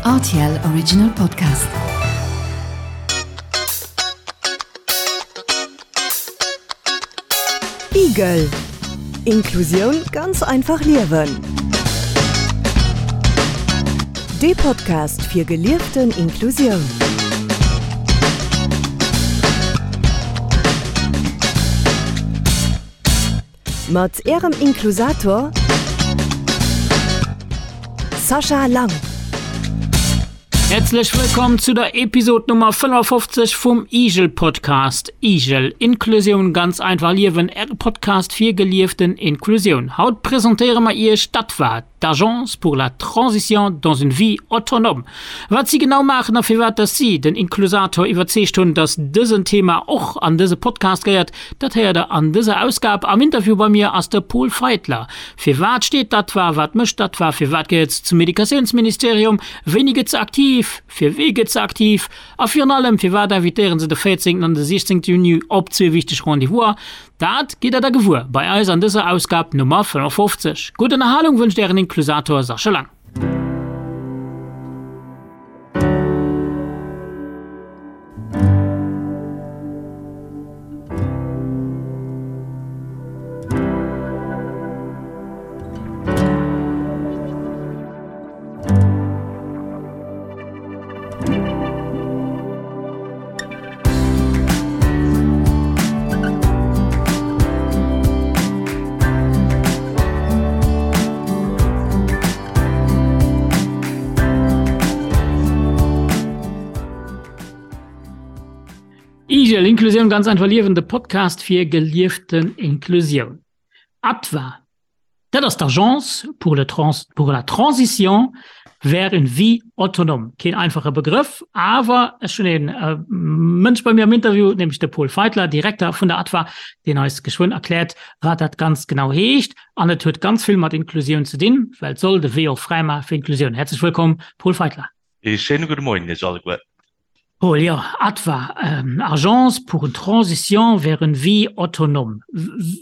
Rtl Original Podcast. Igel Inklusioun ganz einfach liewen. Dee Podcast fir gelieften Inklusioun. Mat Ärem Inklusator Sascha Lang. Häerzlech wëllkomm zu der Episod Nummer 55 vum Igel Podcast. Igel, Inklusioun ganz einfach liewen, Äre Podcast fir gelieften Inklusioun. Haut presentéiere mer Iech d'ATVA, d'Agence pour la transition dans une vie autonome. Wat si genau maachen a firwat dass si den Inklusator iwwerzeegt hunn, dass dësen Thema och an dëse Podcast gehéiert, dat héiert der an dëser Ausgab. Am Interview bei mir ass de Pol Feitler. Firwat steet d'ATVA, wat mécht d'ATVA, firwat gehéiert se zum Educatiounsministerium, wéini gëtt se aktiv, fir wee gëtt se aktiv a virun allem firwat invitéieren se de 14 an de 16 Juni op zwee wichteg Rendez-vouser? Dat gitt der da gewuer bei eis an dëser Ausgab Nummer 55. Gutt Ënnerhalung wënscht ären Inklusator Sascha Lang. Igel, Inklusioun ganz einfach liewen, de Podcast fir gelieften Inklusioun. ATVA, Dat ass d'Agence pour le trans pour la transition vers une vie autonome. Keen einfache Begrëff, awer ech hunn een äh, Mënsch bei mir am Interview, nämlech de Paul Feitler, Direkter vun der ATVA, deen eis geschwënn erkläert, wat dat ganz genau heescht. An et huet ganz vill mat Inklusioun ze dinn, well et soll de Wee och fräi maache fir Inklusioun. Häerzlech wëllkomm, Paul Feitler. Ee schéine gudde Moien Iech alleguer. Paul, Jo, ATVA, Agence pour une transition vers une vie autonome.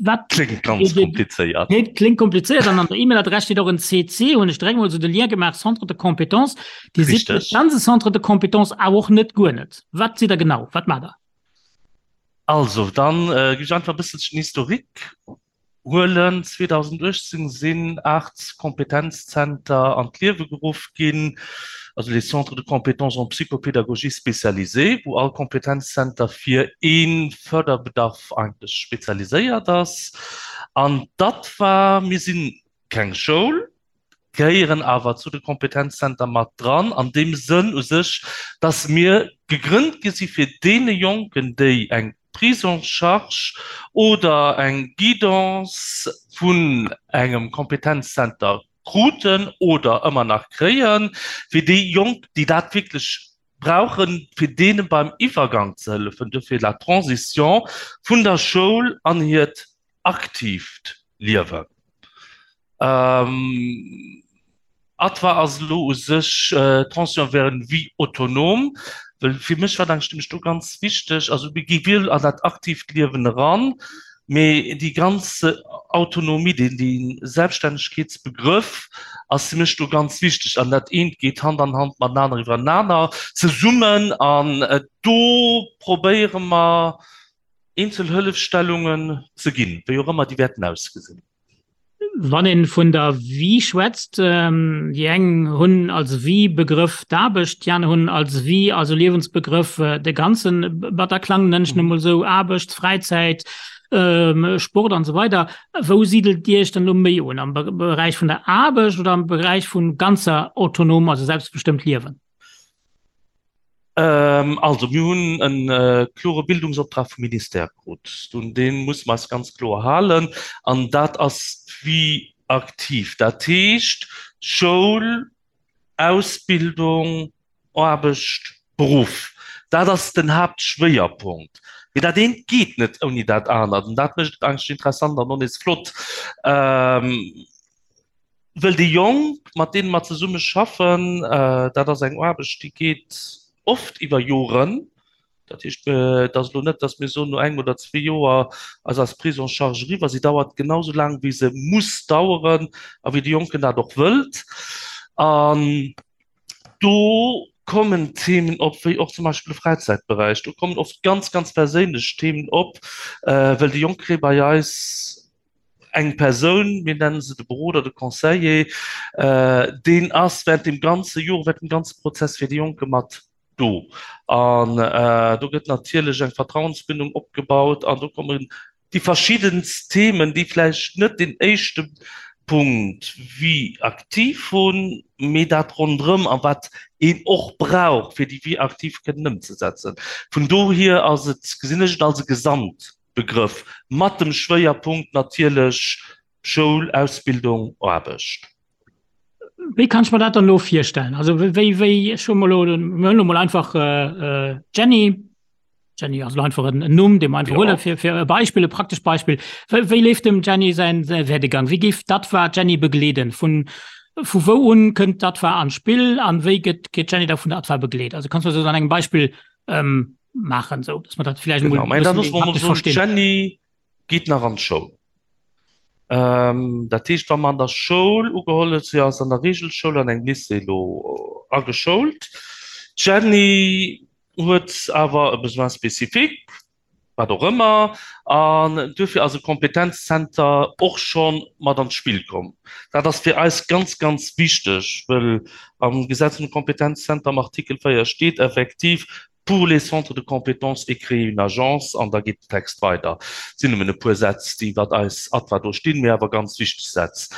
Wat Kléngt ganz komplizéiert. Kléngt komplizéiert an an der E-Mail-Adress steet och en CC, hunn ech direkt mol esou de Lien gemaach, Centre de compétences. Dir sidd net ganz e Centre de compétences, awer och net guer net. Wat sidd Der genau? Wat maacht Der? Also, dann gi ech einfach e bësselchen Historique. Huelen. 2018 sinn 8 Kompetenzzenter an d'Liewe geruff ginn, also les Centres de compétences en psychopédagogie spécialisés, wou all Kompetenzzenter fir ee Förderbedarf eigentlech spezialiséiert ass. An dat war, mir si keng Schoul, gehéieren awer zu de Kompetenzzenter mat dran, an deem Sënn u sech, dass mir gegrënnt gi si fir deene Jonken, déi eng Prise en charge oder eng Guidance vun engem Kompetenzzenter kruten oder ëmmer nach kréien, fir déi Jonk, déi dat wierklech brauchen, fir deene beim Iwwergang ze hëllefen, duerfir la Transition vun der Schoul an hiert aktiivt Liewen. ATVA ass elo u sech d'Transition vers une vie autonome, well fir mech war dat nämlech do ganz wichteg, also mir gi wuel an dat aktiivt Liewen eran, mee déi ganz Autonomie, deen dee Selbststännegkeetsbegrëff ass fir mech do ganz wichteg an dat eent geet Hand an Hand matenaner iwwerenaner zesummen an do probéiere mer eenzel Hëllefstellungen ze ginn, wéi och ëmmer déi wäerten ausgesinn. Wann een vun der Vie schwätzt, déi eng hunn als Vie-Begrëff d'Aarbecht, déi aner hunn als Vie, also Liewensbegrëff, de ganze Bataclan, nennen ech en emol esou, Aarbecht, Fräizäit, Sport an esou weider. Wou sidelt Dir Iech dann elo méi un, am Beräich vun der Aarbecht oder am Beräich vum ganzer autonom, also selbstbestëmmt Liewen? Also mir hunn e klore Bildungsoptrag vum Ministère krut. Un dee musse mer eis ganz kloer halen. An dat ass d'Vie active. Dat heescht Schoul, Ausbildung, Aarbecht, Beruff. Dat ass den Haaptschwéierpunkt. Mee dat eent geet net ouni dat anert. An dat mécht et eigentlech interessant an och nees flott. Wëll déi Jonk, mat deene mer zesumme schaffen, dat ass eng Aarbecht, déi geet oft iwwer Joren. Dat heescht, et ass elo net, datt mir soen, no engem oder zwee Joer ass eis Prise en charge eriwwer. Si dauert genau esou laang, wéi se muss daueren a wéi de Jonken dat och wëllt. An. Do kommen Themen op, wéi och zum Beispill de Fräizäitberäich. Do kommen oft ganz, ganz perséinlech Themen op, well déi Jonk kréie bei eis eng Persoun, mir nennen se de Beroder, de Conseiller, deen ass während dem ganze Joer, während dem ganze Prozess fir déi Jonke mat do. An do gëtt natierlech eng Vertrauensbindung opgebaut an do kommen déi verschiddenst Themen, déi vläicht net deen éischte Punkt Vie active hunn, mee dat ronderëm a wat een och brauch, fir déi Vie active kënnen ëmzesetzen. Vun dohier ass et, gesinn ech et als e Gesamtbegrëff mat dem Schwéierpunkt natierlech Schoul, Ausbildung, Aarbecht. Wéi kann ech mer dat dann elo virstellen? Also wéi, wéi, ech hu mol elo, mir huelen elo mol einfach d'Jenny, Jenny ass elo einfach en Numm, dee mer einfach huelen, fir, fir e Beispill, e praktescht Beispill. Wéi, wéi leeft dem Jenny säin, säi Werdegang? Wéi géif d'ADVA d'Jenny begleeden? Vun, vu wou un kënnt d'ADVA an d'Spill an wéi gëtt, gëtt d'Jenny da vun der ADVA begleet? Also kanns du dat an engem Beispill maachen, esou dass mer dat vläicht emol Genau, mä da loosse mer emol soen, d'Jenny geet nach an d'Schoul. Dat heescht, wa mer an der Schoul ugeholl huet, si ass an der Reegelschoul an engem Lycée elo ageschoult, d'Jenny huet awer e Besoin spécifique, wat och ëmmer, an duerfir ass e Kompetenzzenter och scho mat an d'Spill komm. Dat ass fir eis ganz, ganz wichteg, wëll am Gesetz vum Kompetenzzenter am Artikel 4 steet effektiv, pour les centres de compétences et créer une agence, an da geet den Text weider. Et sinn nëmmen e puer Sätz, déi iwwert eis ADVA do stinn, mee awer ganz wichteg Sätz.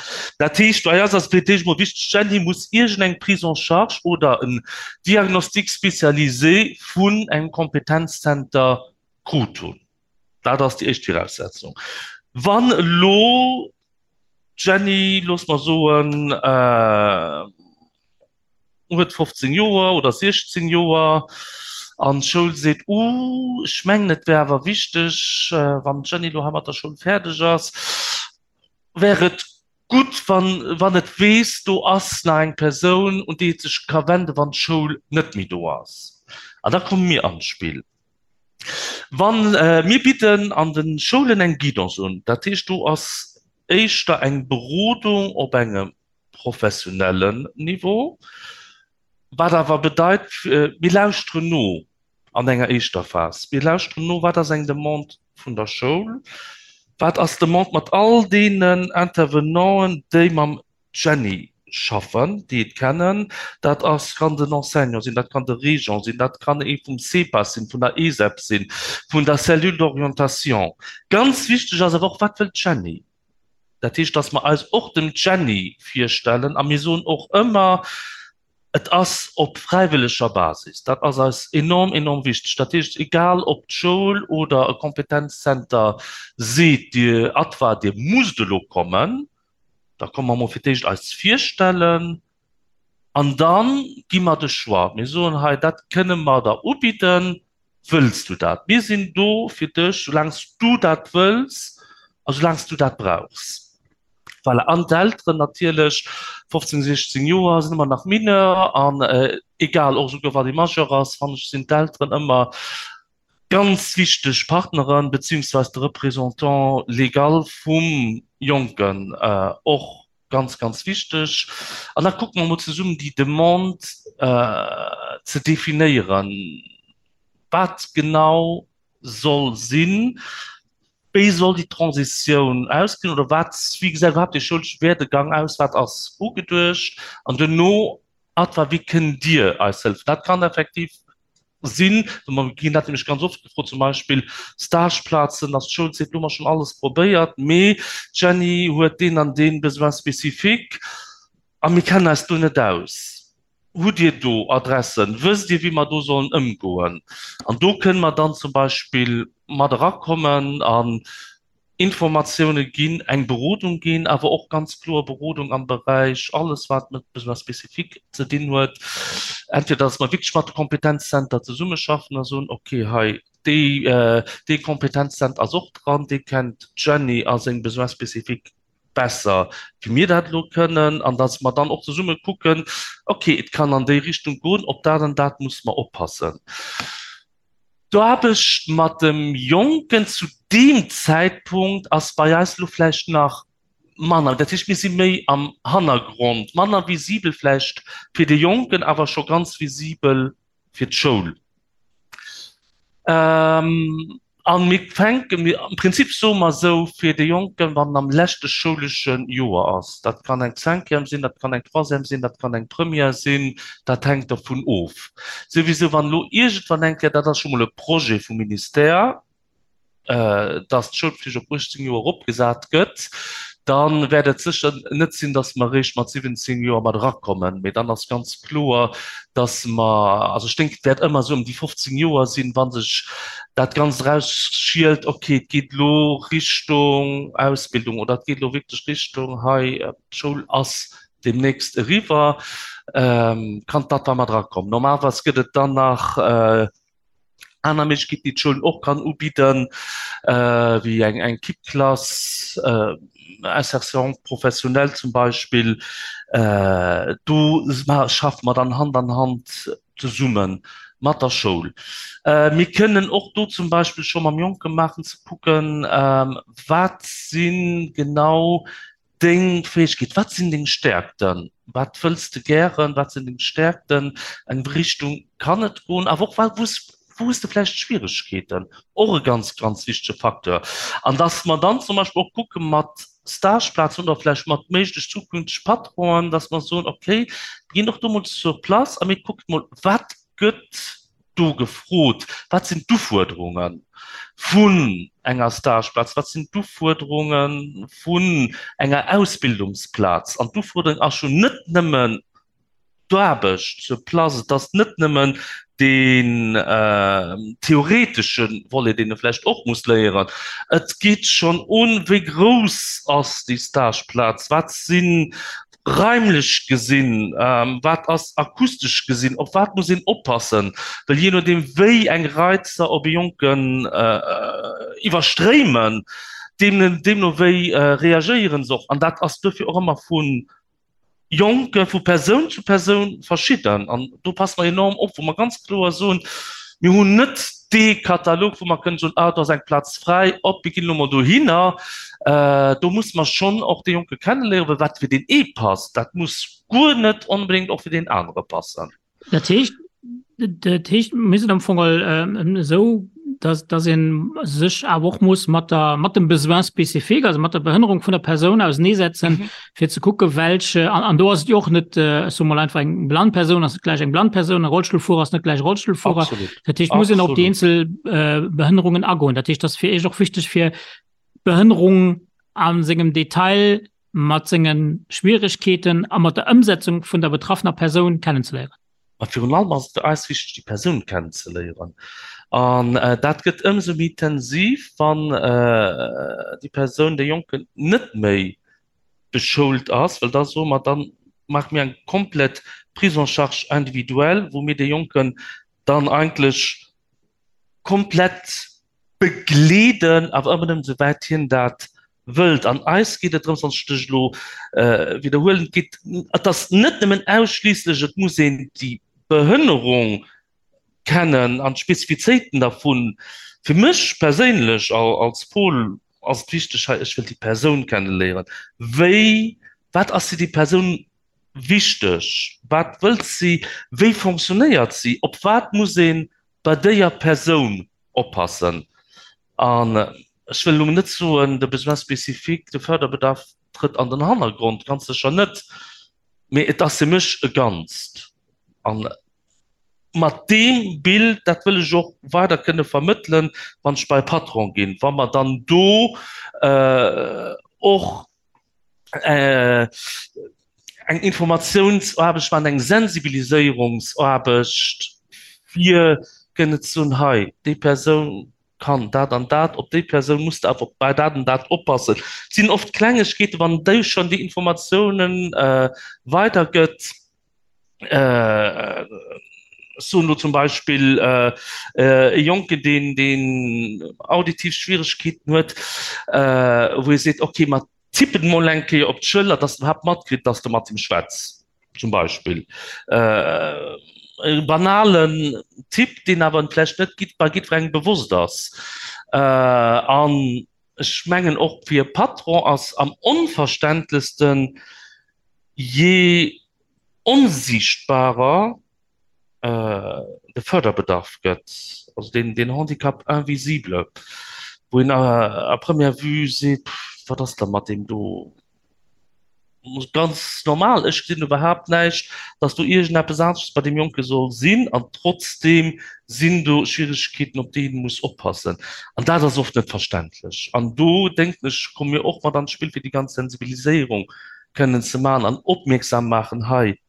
Dat heescht, bei eis ass et fir d'éischt emol wichteg, d'Jenny muss iergendeng Prise en charge oder en Diagnostic spécialisé vun engem Kompetenzzenter krut hunn. Dat ass déi éischt Viraussetzung. Wann elo d'Jenny, loosse mer soen, huet 15 Joer oder 16 Joer an d'Schoul seet, Uh, ech mengen et wär awer wichteg, wann d'Jenny elo hei mat der Schoul fäerdeg ass, wär et gutt, wann, wann et weess, do ass nach eng Persoun, un déi et sech ka wenden, wann d'Schoul net méi do ass. An da komme mir an d'Spill. Wann, mir bidden an de Schoulen eng Guidance un, dat heescht, do ass éischter eng Berodung op engem professionellen Niveau, wat awer bedeit, mir lauschteren no an enger éischter Phas. Mir lauschteren no, wat ass eng Demande vun der Schoul, wat ass d'Demande mat all deenen Intervenanten, déi mam Jenny schaffen, déi et kennen. Dat ass, kann den Enseignant sinn, dat kann de Régent sinn, dat kann ee vum CEPAS sinn, vun der ESEP sinn, vun der Cellule d'orientation. Ganz wichteg ass awer och, wat wëllt d'Jenny? Dat heescht, dass mer eis och dem Jenny virstellen a mir soen och ëmmer, et ass op fräiwëlleger Basis. Dat ass eis enorm, enorm wichteg. Dat heescht, egal ob d'Schoul oder e Kompetenzzenter seet, Dir ADVA, Dir musst elo kommen, da komme mer mol fir d'éischt eis virstellen an da gi mer de Choix. Mir soen, hei, dat kënne mer der ubidden. Wëlls du dat? Mir sinn do fir dech, soulaang s du dat wëlls a soulaang s du dat brauchs. Voilà. An d'Elteren natierlech, 15, 16 Joer sinn ëmmer nach Mineur an egal, och esouguer wann ee Majeur ass, fannen ech, sinn d'Elteren ëmmer ganz wichteg Partneren, beziehungsweise de Représentant légal vum Jonken och ganz, ganz wichteg. An da kucke mer emol zesummen déi Demande ze definéieren, wat genau soll sinn, wéi soll déi Transitioun ausgesinn oder wat, wéi gesäit iwwerhaapt dee schoulesche Werdegang aus, wat ass ugeduecht an duerno, Adva, wéi kënnt Dir eis hëllefen? Dat kann effektiv sinn, mer ginn dat nämlech ganz oft gefrot, zum Beispill Stageplazen, dass d'Schoul seet, lo hu mer schonn alles probéiert, mee d'Jenny huet deen an dee Besoin spécifique a mir kennen eis do net aus. Hutt Dir do Adressen? Wësst Dir, wéi mer do sollen ëmgoen? An do kënne mer dann zum Beispill mat erakommen an Informatioune ginn, eng Berodung ginn, awer och ganz kloer Berodung am Beräich alles wat mat Besoins spécifiques ze dinn huet. Entweder dass mer wierklech mat de Kompetenzzenter zesummeschaffen a soen, okay, hei déi, dee Kompetenzzenter ass och dran, dee kennt d'Jenny a seng Besoins spécifiques besser wéi mir dat elo kënnen, an dass mer dann och zesumme kucken, okay, et kann an déi Richtung goen, op dat an dat musse mer oppassen. D'Aarbecht mat dem Jonken zu deem Zäitpunkt ass bei eis elo vläicht nach. Manner, dat heescht mir si méi am Hannergrond, manner visibel vläicht fir de Jonken, awer scho ganz visibel fir d'Schoul. An mir fänken, mir am Prinzip soe mer esou, fir de Jonken, wann en am leschte schoulesche Joer ass, dat kann eng Cinquième sinn, dat kann eng Troisième sinn, dat kann eng Première sinn, dat hänkt dervun of. Souwisou wann elo iergendwann eng Kéier, dat ass scho mol e Projet vum Ministère, dass d'Schoulpflicht op 18 Joer eropgesat gëtt, da wäert et sécher net sinn, dass mer eréischt mat 17 Joer mat erakommen, mee dann ass ganz kloer, dass mer, also ech denken, et wäert ëmmer esou ëm déi 15 Joer sinn, wa sech dat Ganzt erausschielt, okay, et geet elo Richtung Ausbildung oder et geet elo wierklech Richtung hei, d'Schoul ass deemnächst eriwwer, kann dat da mat erakommen. Normalerweis gëtt et dann nach aner Méiglechkeeten, déi d'Schoulen och kann ubidden, wéi eng eng Kippklass, Insertion professionnelle zum Beispill. Do schaffe mer dann Hand an Hand zesumme mat der Schoul. Mir kënnen och do zum Beispill scho mam Jonke maachen, ze kucken, wat si genau Deng Fäegkeet, Wat sinn deng Stäerkten? Wat wëlls de gären? Wat sinn deng Stäerkten? Eng Richtung kann et goen, awer och wou wou hues de vläicht Schwieregkeeten? Och e ganz, ganz wichtege Facteur. An dass mer dann zum Beispill och kucke mat Stageplazen oder vläicht mat méiglech zukünfteg Patronen, dass mer soen, okay, mir ginn och do mol sur place a mir kucken mol, wat gëtt do gefrot, Wat sinn d'Ufuerderunge vun enger Stageplaz? Wat sinn d'Ufuerderunge vun enger Ausbildungsplaz? An d'Ufuerderung ass jo net nëmmen d'Aarbecht sur place, et ass net nëmmen deen theoretesche Volet, deen e vläicht och muss léieren. Et geet schonn un, Wéi grouss ass déi Stageplaz? Wat sinn Raimlech gesinn, wat ass akustesch gesinn, op wat muss een oppassen, well jee nodeem wéi eng Reizer op e Jonken iwwerstréimen, deemno wéi reagéiere se och. An dat ass duerfir och ëmmer vu Jonke vu Persoun zu Persoun verschidden. An do passe mer enorm op, wou mer ganz kloer soen, Mir hunn net dee Katalog, wou mer kënnen soen, ah do ass eng Plaz fräi, op mir ginn elo mol dohinner. Do musse mer schonn och dee Jonke kenneléieren, well wat fir deen ee passt, dat muss guer net onbedéngt och fir deen anere passen. Dat heescht, dat heescht, mir sinn am Fong esou, dass, dass ee sech awer och muss mat der, mat dem Besoin spécifique, also mat der Behënnerung vun der Persoun auseneesetzen, fir ze kucke welch an, an do ass et jo och net äh, ech soe mol einfach eng blann Persoun ass net gläich eng blann Persoun, e Rollstullfuerer ass net gläich Rollstullfuerer. Absolut. Dat heescht, muss een op déi Absolut. eenzel äh, Behënnerungen agoen. Dat heescht, dat ass fir Iech och wichteg fir d'Behënnerung a sengem Detail mat sengen Schwieregkeeten a mat der Ëmsetzung vun der betraffener Persoun kennenzeléieren. Mä virun allem ass et fir eis wichteg, déi Persoun kennenzeléieren. An dat gëtt ëmsou méi intensiv, wann déi Persoun, dee Jonken net méi beschoult ass, well da soe mer, da maache mir eng komplett Prise en charge individuelle, wou mir dee Jonken dann eigentlech komplett begleeden, awer ëmmer nëmmen esouwäit hien dat wëllt. An eis geet et drëms, wann ech dech elo widderhuelen, et geet, et ass net nëmmen ausschliisslech, et muss een déi Behënnerung kennen an d'Spezifizéiten dervun. Fir mech perséinlech als Paul ass et wichteg hei, ech wëll déi Persoun kenneléieren. Wéi, wat ass fir déi Persoun wichteg? Wat wëllt si? Wéi fonctionnéiert si? Op wat muss ee bei déier Persoun oppassen? An ech wëll elo net soen, de Besoin spécifique, de Förderbedarf trëtt an den Hannergrond, ganz sécher net, mee et ass fir mech e Ganzt. An mat deem Bild, dat wëll ech och weider kënne vermëttelen, wann ech bei e Patron ginn, wa mer dann do och eng Informatiounsaarbecht maachen, eng Sensibiliséierungsaarbecht, fir kënne ze soen, hei, déi Persoun kann dat an dat, op déi Persoun muss de awer bei dat an dat oppassen. Et sinn oft Klengegkeeten, wann déi schonn déi Informatiounen weidergëtt, ech soen elo zum Beispill e Jonken, deen, deen auditiv Schwieregkeeten huet, wou ee seet, okay, mer tippen emol eng Kéier op d'Schëller, dass en iwwerhaapt matkritt, dass de mat him schwätz, zum Beispill. E banalen Tipp, deen awer vläicht net bei jiddwerengem bewosst ass. An. ech mengen och fir e Patron ass am onverständlechsten, jee onsiichtbarer de Förderbedarf gëtt, also deen, deen Handicap invisible, wou een à première vue seet, pff, wat ass da mat deem do? Ganz normal, ech gesinn iwwerhaapt näischt, datt do iergendeppes aneschters bei deem Jonke soll sinn an trotzdeem sinn do Schwieregkeeten, op déi ee muss oppassen. An dat ass oft net verständlech. An do, denken ech, komme mir och mat an d'Spill, fir déi ganz Sensibiliséierung kënnen ze maachen an opmierksam maachen, hei,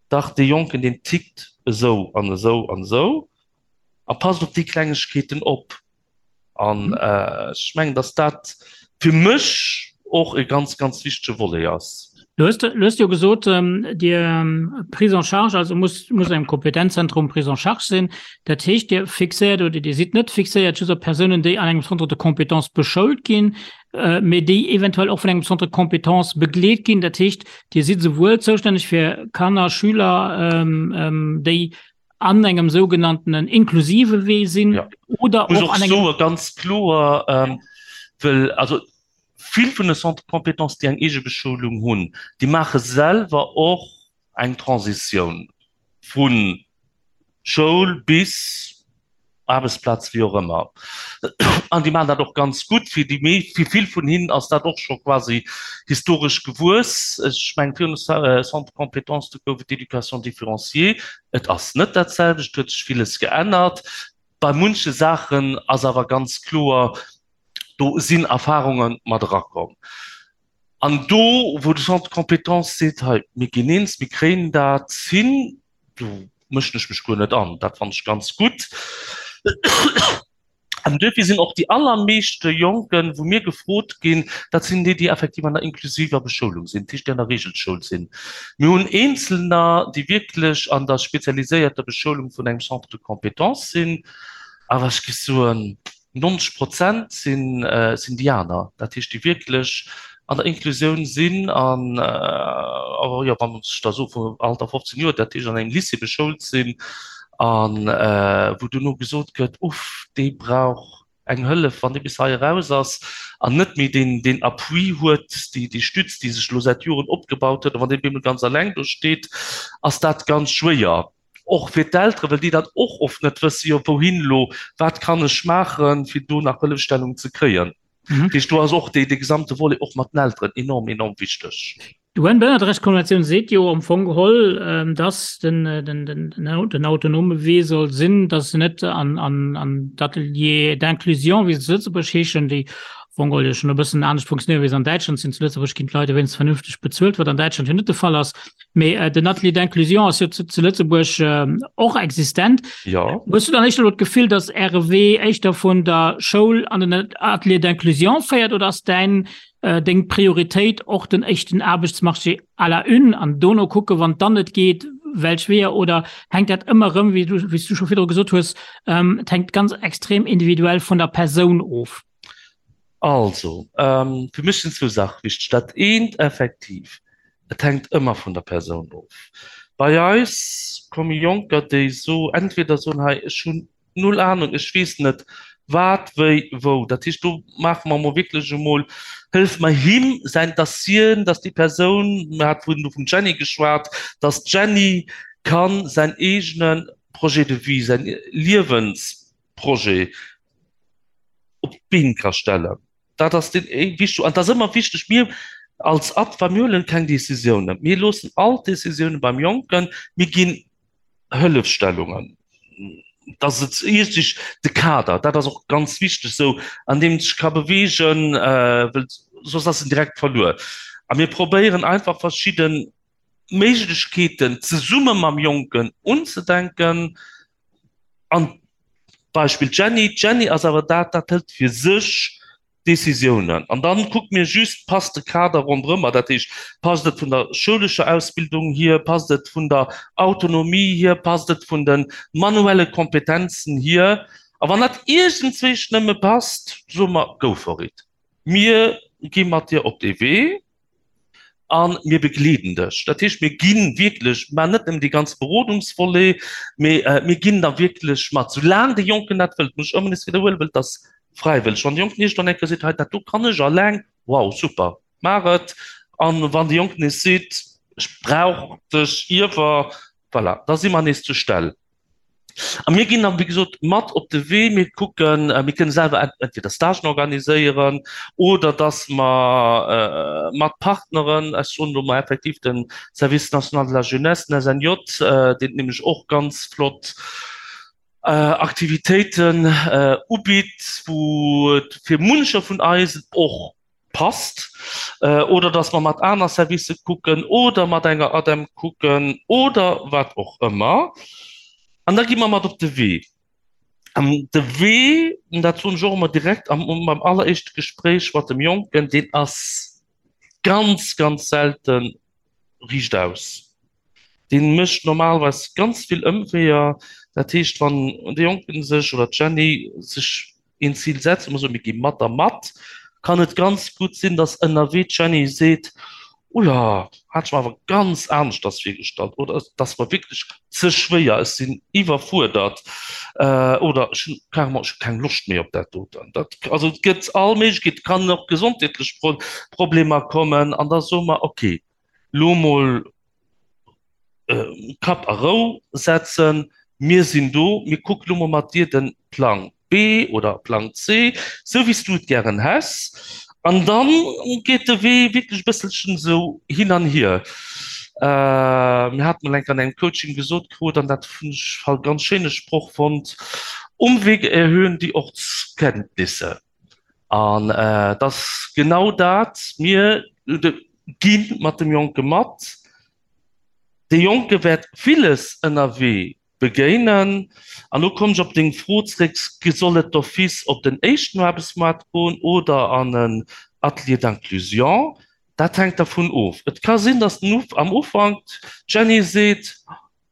dach, dee Jonken, deen tickt esou an esou an esou a passt op déi Klengegkeeten op. An ech mengen, datt dat fir mech och e ganz, ganz wichtege Volet ass. Du hues, du hues jo gesot, Dir Prise en charge, also muss, muss engem Kompetenzzentrum Prise en charge sinn. Dat heescht, Dir fixéiert oder Dir sidd net fixéiert just op Persounen, déi an engem Centre de compétences beschoult ginn, mee déi eventuell och vun engem Centre de compétences begleet ginn. Dat heescht, Dir sidd souwuel zoustänneg fir Kanner, Schüler, déi an engem sougenanntenen inklusive Wee sinn ja. oder och an engem ganz kloer ähm, well also vill vun de Centre compétences déi eng eege Beschoulung hunn, déi maache selwer och eng Transitioun vu Schoul bis Aarbechtsplaz, wéi och ëmmer. An déi maachen dat och ganz gutt. Fir déi mee, fir vill vun hinnen ass dat och scho quasi historesch gewuess. Ech mengen, virun de Centres de compétences, do gouf et d'Éducation différenciée. Et ass net dat selwecht, et huet sech villes geännert. Bei munche Saachen ass awer ganz kloer, do sinn Erfarunge mat erakomm. An do, wou de Centre de compétences seet, hei, mir ginn eens, mir kréien dat hin, do mëschen ech mech guer net an, dat fannen ech ganz gutt. An duerfir sinn och déi allermeeschte Jonken, wou mir gefrot ginn, dat sinn déi, déi effektiv an der inklusiver Beschoulung sinn, dat heescht, déi an der Reegelschoul sinn. Mir hunn Eenzelner, déi wierklech an der spezialiséierter Beschoulung vun engem Centre de compétences sinn, awer ech géif soen, 90 Prozent sinn déi aner, dat heescht déi wierklech an der Inklusioun sinn an, jo, wann ech da soe vum Alter 15 Joer, dat heescht an engem Lycée beschoult sinn a wou duerno gesot gëtt, uff, dee brauch eng Hëllef, wann dee bis hei eraus ass an net méi deen, deen Appui huet, déi, déi Stütz, déi sech elo säit Joren opgebaut huet, a wann dee bemol ganz alleng do steet, ass dat ganz schwéier. Och fir d'Elteren, well déi dat och oft net wëssen, jo wouhin elo, wat kann ech maachen, fir do nach Hëllefstellung ze kréien. Dat heescht, do ass och dee gesamte Volet och mat den Elteren enorm, enorm wichteg. D'UN-Bënnerrechtskonventioun seet jo am Fong geholl, dass den autonome Wee soll sinn, dass se net an d'Ateliers d'inclusion, wéi se zu Lëtzebuerg heeschen, déi am Fong geholl jo schonn e bëssen anescht funktionéieren, wéi se an Däitschland sinn. Zu Lëtzebuerg ginn d'Leit wéinstens vernünfteg bezuelt, wat an Däitschland jo net de Fall ass. Mee den Atelier d'inclusion ass jo zu Lëtzebuerg och existent. Jo. Hues du dann éischter elo d'Gefill, datt Äre Wee éischter vun der Schoul an den Atelier d'inclusion féiert oder ass däin, deng Prioritéit och den éischten Aarbechtsmarché à la une an dono kucke wann et dann net geet, welch Weeër? Oder hänkt dat ëmmer erëm, wéi du, wéi s du scho virdru gesot hues, et hänkt ganz extrem individuell vun der Persoun of? Also, fir mech sinn zwou Saache wichteg. Dat eent effektiv, et hänkt ëmmer vun der Persoun of. Bei eis komme Jonker, déi so entweder soen, hei ech hunn null Ahnung, ech weess net wat, wéi, wou. Dat heescht, do maache mer emol wierklech emol, hëllefe mer him säin Dossieren, dass déi Persoun, mir hate vun vum Jenny geschwat, dass d'Jenny ka säin eegene Projet de vie, säin Liewensprojet op d'Been ka stellen. Dat ass deen wichteg. An et ass ëmmer wichteg, mir als ADFA, mir huelen keng Décisiounen. Mir loossen all d'Décisiounen beim Jonken. Mir ginn Hëllefstellungen, dass et iergendwéi de Kader, dat ass och ganz wichteg esou, an deem et sech ka beweegen, well soss ass en direkt verluer. A mir probéieren einfach verschidde Méiglechkeeten zesumme mam Jonken unzedenken An Beispill d'Jenny, d'Jenny ass awer dat, dat hëlt fir sech Décisiounen. An dann kucke mir just, passt de Kader ronderëmmer, dat heescht, passt et vun der schoulescher Ausbildung hier, passt et vun der Autonomie hier, passt et vun de manuelle Kompetenzen hier. A wann dat iergendzwéisch nëmme passt, soe mer, go for it, mir gi mat dir op dee Wee. A mir begleeden dech. Dat heescht, mir gi wierklech, maachen net nëmmen dee ganze Berodungsvolet, mee mir ginn da wierklech mat, soulaang de Jonken dat wëllt, muss ech ëmmer nees widderhuelen, well et ass. Fräiwëlleg. Wann de Jonken iergendwann eng Kéier seet, hei dat do kann ech alleng, wow, super, maach et. An wann de Jonken nees seet, ech brauch dech iewer, voilà, da si mer nees zur Stell. A mir ginn dann, wéi gesot, mat op de Wee. Mir kucken, mir kënnen selwer entweder Stagen organiséieren oder dass mer mat Partneren, ech soen elo mol effektiv de Service national de la jeunesse, den SNJ, deen nämlech och ganz flott Aktivitéiten ubitt, wou et fir muncher vun eis och passt, oder dass mer mat aner Servicë kucken oder mat enger ADEM kucken oder wat och ëmmer. An da gi mer mat op de Wee. An de Wee, dat soen ech och ëmmer direkt am, beim alleréischte Gespréich mat dem Jonken, deen ass ganz, ganz selten riichtaus. Dee mécht normalerweis ganz vill Ëmweeër. Dat heescht, wann de Jonken sech oder d'Jenny sech een Zil setzt, a mer soen, mir gi mat a mat, kann et ganz gutt sinn, datt ënnerwee d'Jenny seet, Oula, hat ech mer awer ganz aneschters virgestallt oder et ass mer wierklech ze schwéier, ech sinn iwwerfuerdert oder ech hunn carrément, ech hu keng Loscht méi op dat doten. Dat, also et gëtt all Méiglechkeet, et kann och gesondheetlech Problemer kommen an da soe mer, okay, lo mol Kapp a Rou setzen, mir sinn do, mir kucke lo mol mat dir de Plang B oder Plang C, sou wéi s du et gären häss. An da geet de Wee wierklech e bësselchen esou hin an hier. Mir hate mol eng Kéier an engem Coaching gesot krut, an dat hunn ech e ganz schéine Sproch fonnt, Umwege erhöhen die Ortskenntnisse. An et ass genau dat, mir gi mat dem Jonke mat. Dee Jonke wäert villes ënnerwee begéinen. An elo kommen ech op deng Fro zréck, Soll et d'office op den éischten Aarbechtsmaart goen oder an en Atelier d'inclusion? Dat hänkt dervun of. Et ka sinn, datt am Ufank d'Jenny seet,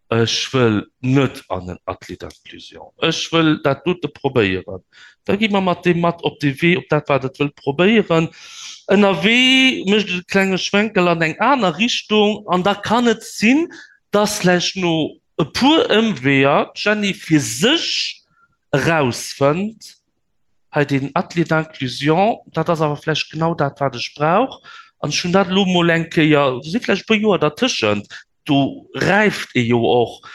Ech wëll net an en Atelier d'inclusion. Ech wëll dat dote probéieren. Da gi mer mat deem mat op de Wee, op dat, wat et wëllt probéieren. Ënnerwee mécht et e klenge Schwenkel an eng aner Richtung an da kann et sinn, dass vläicht no e puer Ëmweeër d'Jenny fir sech erausfënnt, Hei deen Atelier d'inclusion, dat ass awer vläicht genau dat, wat ech brauch. An ech hunn dat elo mol eng Kéier, do si vläicht e puer Joer dertëschent, do räift ee jo och.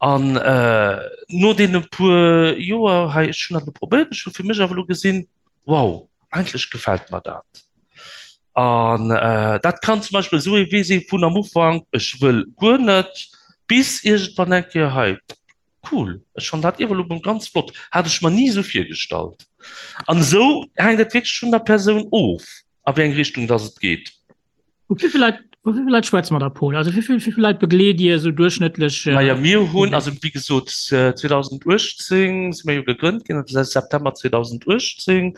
An no deene puer Joer hei, ech hunn dat elo probéiert, ech hu fir mech awer elo gesinn, wow, eigentlech gefält mer dat. An dat kann zum Beispill esou ee Wee si vun am Ufank, ech wëll guer net, bis iergendwann eng Kéier, hei, Cool, ech fannen dat Iwwerlubum ganz flott, hat ech mer ni esou virgestallt. An esou hänkt et wierklech vun der Persoun of, a wéi eng Richtung dass et geet. Vu wéi vill Leit, vu wéi vill Leit schwätze mer da, Paul? Also wéi vill, wéi vill Leit begleet Dir esou duerchschnëttlech? Naja, mir hunn, also wéi gesot, 2018 si mir jo gegrënnt ginn, also säit September 2018.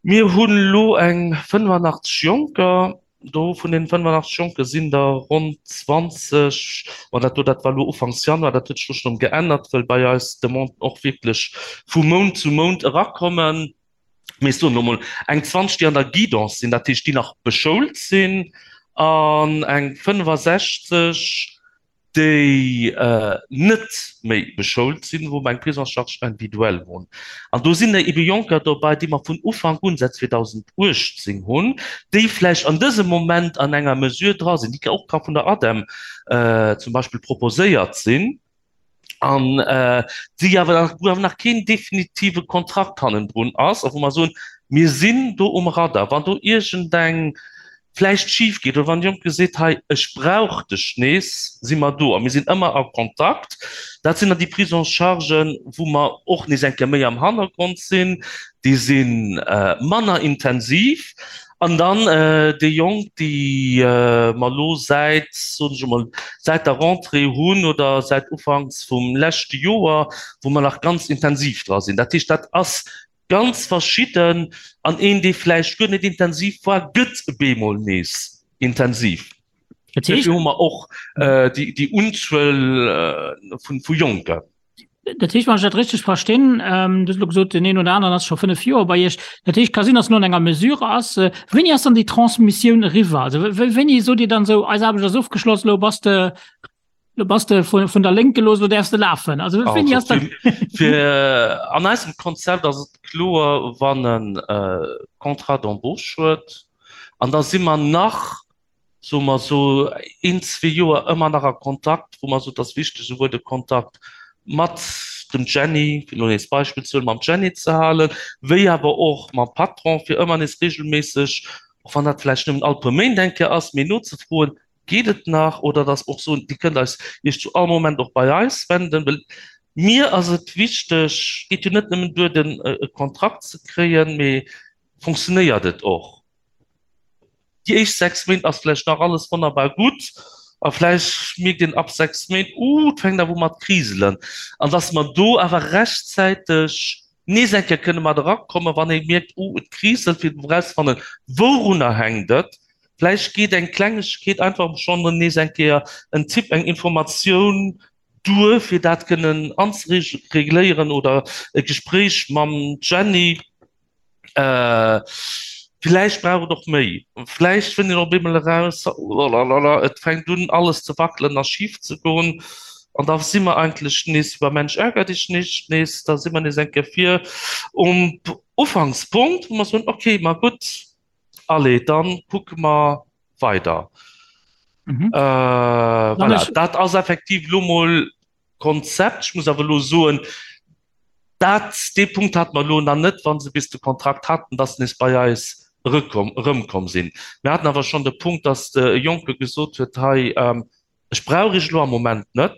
Mir hunn elo eng 85 Jonker. Do vun deenen 85 Jonke sinn der ronn 20, ma dat do, dat war elo ufanks Januar, dat huet sech elo schonn geännert, well bei eis d'Demanden och wierklech vu Mount zu Mount erakommen. Mee ech soen elo mol eng 20, déi an der Guidance sinn, dat heescht, déi nach beschoult sinn, an eng 65, déi net méi beschoult sinn, wou mer eng Prise en charge individuelle hunn. An do sinn der ebe Jonker dobäi, déi mer vun Ufank un, säit 2018 hunn, déi vläicht an dësem Moment an enger Mesure dra sinn, déi och ka vun der ADEM zum Beispill proposéiert sinn an déi awer nach, wou awer nach keen definitive Kontrakt hannendrun ass a wou mer soen, mir sinn do um Radar, wann do iergendeng vläicht schif geet oder wann de Jonke seet, hei ech brauch dech nees, si mer do a mir sinn ëmmer a Kontakt. Dat sinn dann déi Prise en chargen, wou mer och nees eng Kéier méi am Hannergrond sinn, déi si manner intensiv. An dann déi Jonk, déi mer elo säit, soen ech emol, säit der Rentrée hunn oder säit ufanks vum leschte Joer, wou mer nach ganz intensiv dra sinn. Dat heescht, dat ass Ganz verschidden, an een dee vläicht guer net intensiv war, gëtt bemol nees intensiv. Dat heescht. Dofir hu mer och déi Unzuel vu Jonken. Dat heescht, wann ech dat richteg verstinn, Du hues elo gesot, deen een oder aneren ass scho 5 Joer bei Iech. Dat heescht, ka sinn, datt en elo an enger Mesure ass. Wéini ass dann déi Transmissioun eriwwer? Also wéini sot Dir dann esou, eis Aarbecht ass ofgeschloss, elo bass de. Lo bass de vun, vun der Lénk gelooss, lo däerfs de lafen. Also, wéini ass dat? Fir, an eisem Konzept ass et kloer, wann en Contrat d'embauche huet, an da si mer nach, soe mer esou, een, zwee Joer ëmmer nach a Kontakt, wou mer soen, et ass wichteg, esouwuel de Kontakt mat dem Jenny, fir elo nees d'Beispill ze huelen, mam Jenny ze halen, wéi awer och mam Patron, fir ëmmer nees regelméisseg, och wann dat vläicht nëmmen all puer Méint eng Kéier ass, mee nozefroen, Geet et nach? Oder dass mer och soen, Dir kënnt eis Iech zu all Moment och bei eis wenden, well mir ass et wichteg, et geet jo net nëmmen duer, den e Kontrakt ze kréien, mee funktionéiert et och? Déi éischt 6 Méint ass vläicht nach alles wonnerbar gutt a vläicht mierkt een ab 6 Méint, Uh, et fänkt awer u mat kriselen. An dass mer do awer rechtzäiteg nees eng Kéier kënne mat erakommen, wann ee mierkt, Uh, et kriselt, fir erauszefannen, wourunner hänkt et? Vläicht geet eng Klengegkeet einfach schonn nees eng Kéier en Tipp, eng Informatioun duer, fir dat kënnen anzeregléieren oder e Gespréich mam Jenny. Vläicht brauch et och méi. Vläicht fënnt een op eemol eraus, Olalala, et fänkt un alles ze wackelen a schif ze goen. An da si mer eigentlech nees wéi bei Mensch ärger dich nicht, nees, da si mer nees eng Kéier vir um Ufankspunkt, wou mer soen, okay, ma gutt, Allez, dann kucke mer weider. Mhm. Äh, voilà. Dat ass effektiv lo mol Konzept. Ech muss awer lo soen, dat, dee Punkt hat mer lo nach net, wann se bis de Kontrakt hatten, dass se nees bei eis erëkomm, erëmkomm sinn. Mir haten awer schonn de Punkt, dass de Jonke gesot huet, hei, ähm, Ech brauch Iech elo am Moment net,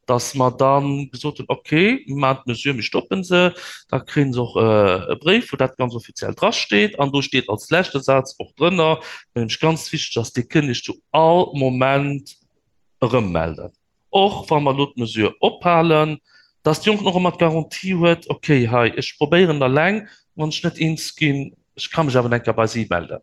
dass mer da gesot hunn, okay, mir maachen d'Mesure, mir stoppe se. Da kréie se och e Bréif, wou dat ganz offiziell drasteet. An do steet als leschte Saz och drënner, wat nämlech ganz wichteg ass, Dir kënnt Iech zu all Moment erëmmelden, och wa mer elo d'Mesure ophalen, dass de Jonken och ëmmer d'Garantie huet, okay, hei, ech probéieren eleng, wann ech net eens ginn, ech ka mech awer eng Kéier bei si melden.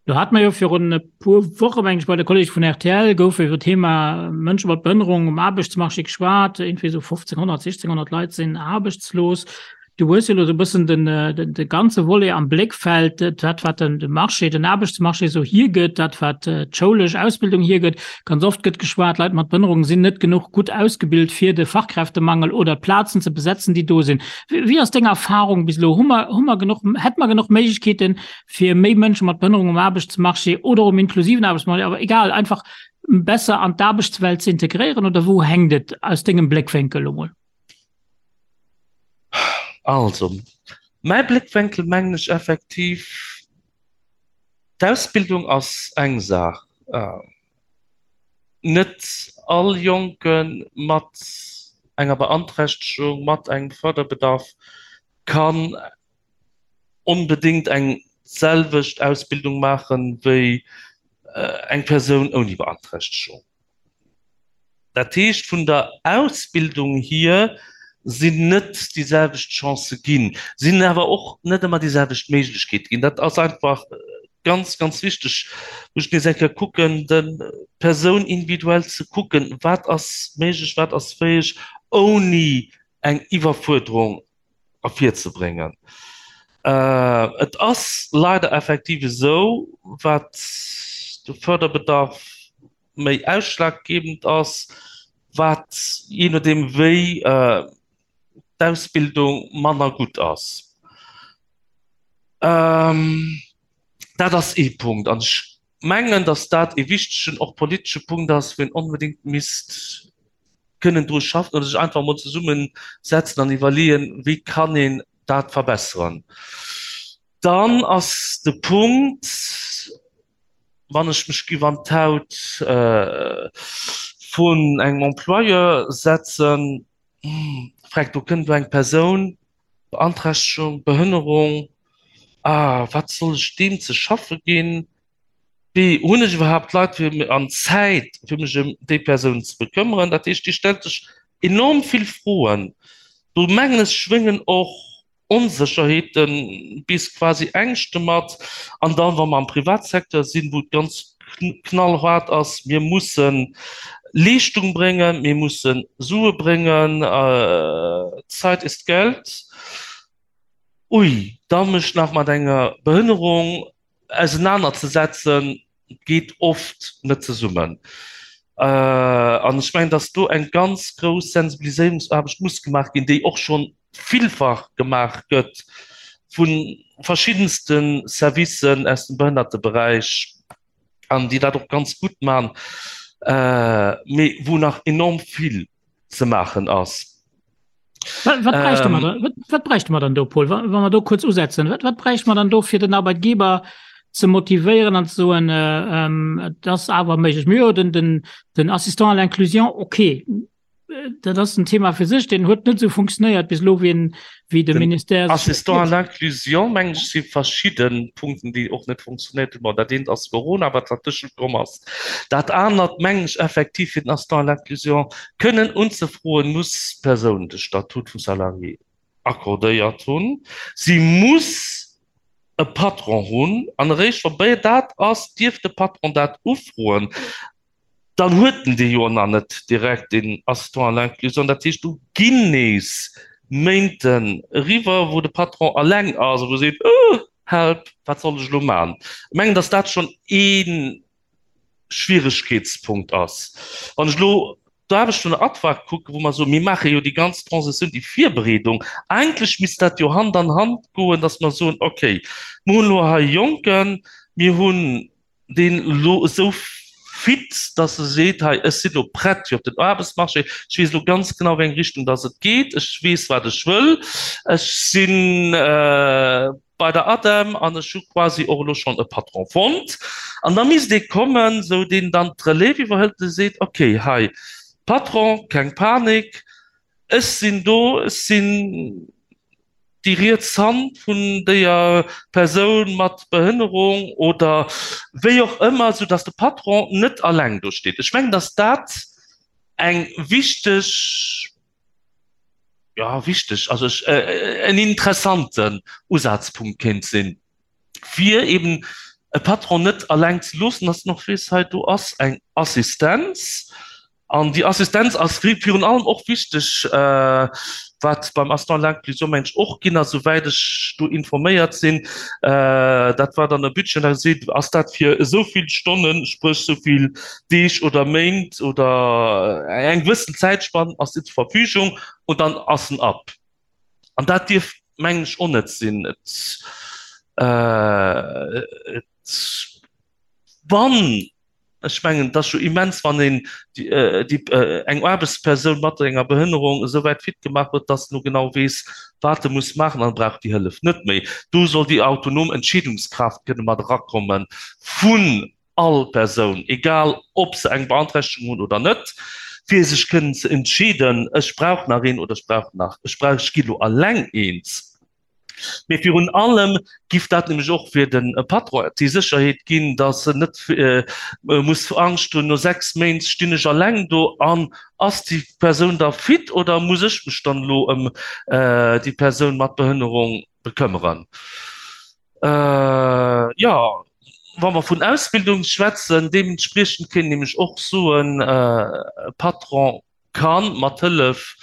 Do hate mer jo virun e puer Woche, meng ech, bei de Kollege vun rtl gouf iwwer d'Thema Mënsche mat Behënnerung um Aarbechtsmarché geschwat. Iergendwéi esou 1500, 1600 Leit sinn aarbechtslos. Du hues jo elo esou e bëssen den, de ganze Volet am Bléckfeld, dat wat den de Marché, den Aarbechtsmarché esou hiergëtt, dat wat d'schoulesch Ausbildung hiergëtt. Ganz oft gëtt geschwat, Leit mat Behënnerung sinn net genuch gutt ausgebilt fir de Fachkräftemangel oder d'Plazen ze besetzen, déi do sinn. Wéi ass deng Erfahrung bis elo? Hu mer, hu mer genuch, hätte mer genuch Méiglechkeeten, fir méi Mënsche mat Behënnerung um Aarbechtsmarché oder um inklusiven Aarbechtsmarché, awer egal, einfach besser an d'Aarbechtswelt ze integréieren oder wou hänkt et aus dengem Bléckwénkel elo mol? Also, mäi Bléckwénkel mengen ech effektiv, d'Ausbildung ass eng Saach. Net all Jonke mat enger Beanträchtegung, mat engem Förderbedarf kann onbedéngt eng selwecht Ausbildung maache wéi eng Persoun ouni Beanträchtegung. Dat heescht, vun der Ausbildung hier sinn net déi selwecht Chancë ginn, sinn awer och net ëmmer déi selwecht Méiglechkeete ginn. Dat ass einfach ganz, ganz wichteg, wou ech nees eng Kéier kucken, der Persoun individuell ze kucken, wat ass méiglech, wat ass fäeg, ouni eng Iwwerfuerderung ervirzebréngen. Et ass leider effektiv esou, wat de Förderbedarf méi ausschlaggebend ass, wat jee nodeem wéi d'Ausbildung manner gutt ass. Dat ass ee Punkt an ech mengen, datt dat ee wichtegen, och politesche Punkt ass, wou een onbedéngt misst kënnen dru schaffen oder sech einfach emol zesummesetzen an iwwerleeën, wéi kann een dat verbessern. Dann ass de Punkt, wann ech mech giff an d'Haut vun engem Employeur setzen, freck, do kënnt elo eng Persoun, Beanträchtegung, Behënnerung, ah, wat soll ech deem ze schaffe ginn? Wéi hunn ech iwwerhaapt Leit fir an Zäit fir mech ëm déi Persoun ze bekëmmeren? Dat heescht, Dir stellt sech enorm vill Froen. Do mengen ech schwéngen och Onsécherheeten bis quasi Ängschte mat. An dann, wa mer am Privatsecteur sinn, wou et ganz knallhart ass, mir musse Leeschtung bréngen, mir musse Sue bréngen, Zeit ist Geld, ui, da mech nach mat enger Behënnerung ausenanerzesetzen, geet oft net zesummen. An ech mengen, dass do eng ganz grouss Sensibiliséierungsaarbecht muss gemaach ginn, déi och scho villfach gemaach gëtt vu verschiddenste Servicen aus dem Behënnerteberäich an déi dat och ganz gutt maachen, mee wou nach enorm vill ze maachen ass. Wat, wat bräichte mer da, wat, wat bräichte mer dann do, Paul, wa, wa mer do kuerz usetzen? Wat, wat bräichte mer dann do, fir den Arbeitgeber ze motivéieren an ze soen, äh, ähm, et ass awer méiglech? Mir jo den, den, den Assistant à l'inclusion, okay, dat ass en Thema fir sech, deen huet net esou funktionéiert bis elo, wéi en, wéi de Den Ministère sech Assistant à l'inclusion, mengen ech, si verschidde Punkten, déi och net funktionéiert hunn. Bon, dat eent ass Corona, wat dertëschent komm ass. Dat anert, mengen ech, effektiv, fir den Assistant à l'inclusion kënnen unzefroen, muss d'Persoun de Statut vum Salarié accordéiert hunn. Si muss e Patron hunn an eréischt wa béi dat ass, dierf de Patron dat ufroen. Dann huet en dee jo nach net direkt, deen Assistant à l'inclusion. Dat heescht, do ginn nees Méinten eriwwer, wou de Patron eleng ass a wou e seet, Oh, help, wat soll ech elo maachen? Ech mengen, datt dat schonn ee Schwieregkeetspunkt ass. Wann ech elo d'Aarbecht vun der ADFA kucken, wou mer soen, mir maache jo déi ganz Transition, déi Virbereedung, eigentlech misst dat jo Hand an Hand goen, datt mer soen, okay, mir hunn elo hei e Jonken, mir hunn deen elo esou fit, datt e seet, hei, ech sinn elo prett fir op den Aarbechtsmarché, ech weess elo ganz genau, wéi eng Richtung datt et geet, ech weess, wat ech wëll, ech si bei der ADEM an ech hu quasi och elo schonn e Patron fonnt. An da misst ee kommen, esou deen dann d'Relève iwwerhëlt, dee seet, okay, hei, Patron, keng Panik, ech sinn do, ech sinn déi riets Hand vun déier Persoun mat Behënnerung oder wéi och ëmmer, sou dass de Patron net alleng do steet. Ech mengen, dass dat eng wichteg, jo wichteg, also ech, en interessanten Usazpunkt kéint sinn. fir eben e Patron net alleng ze loossen, dass en och weess, hei do ass eng Assistenz. An déi Assistenz ass virun allem och wichteg, wat beim Assistant à l'inclusion, meng ech, och ginn ass, souwäit ech do informéiert sinn, dat war dann e Budget, an da seet, ass dat fir esou vill Stonnen, spréch esou vill Deeg oder Méint oder eng gewëssen Zäitspann ass déi zur Verfügung und dann ass en ab. An dat dierf, mengen ech, och net sinn. Et, et, wann, ech mengen, et ass jo immens, wann een déi, eng Aarbechtspersoun mat enger Behënnerung esou wäit fit gemaach huet, dass en elo genau weess, wat e muss maachen an e brauch déi Hëllef net méi. Do soll déi autonom Entscheedungskraaft kënne mat erakomme vun all Persoun, egal ob se eng Beanträchtegung hunn oder net, fir sech kënnen ze entscheeden, ech brauch nach een oder ech brauch nach, ech brauch, ech gi lo alleng eens. Mee virun allem giff dat nämlech och fir de Patron déi Sécherheet ginn, datt en net muss Angscht hunn, no 6 Méint stinn ech alleng do an ass déi Persoun da fit oder muss ech mech dann elo ëm déi Persoun mat Behënnerung bekëmmeren. Jo, wa mer vun Ausbildung schwätzen, deementspriechend kéint een nämlech och soen, e Patron ka mat Hëllef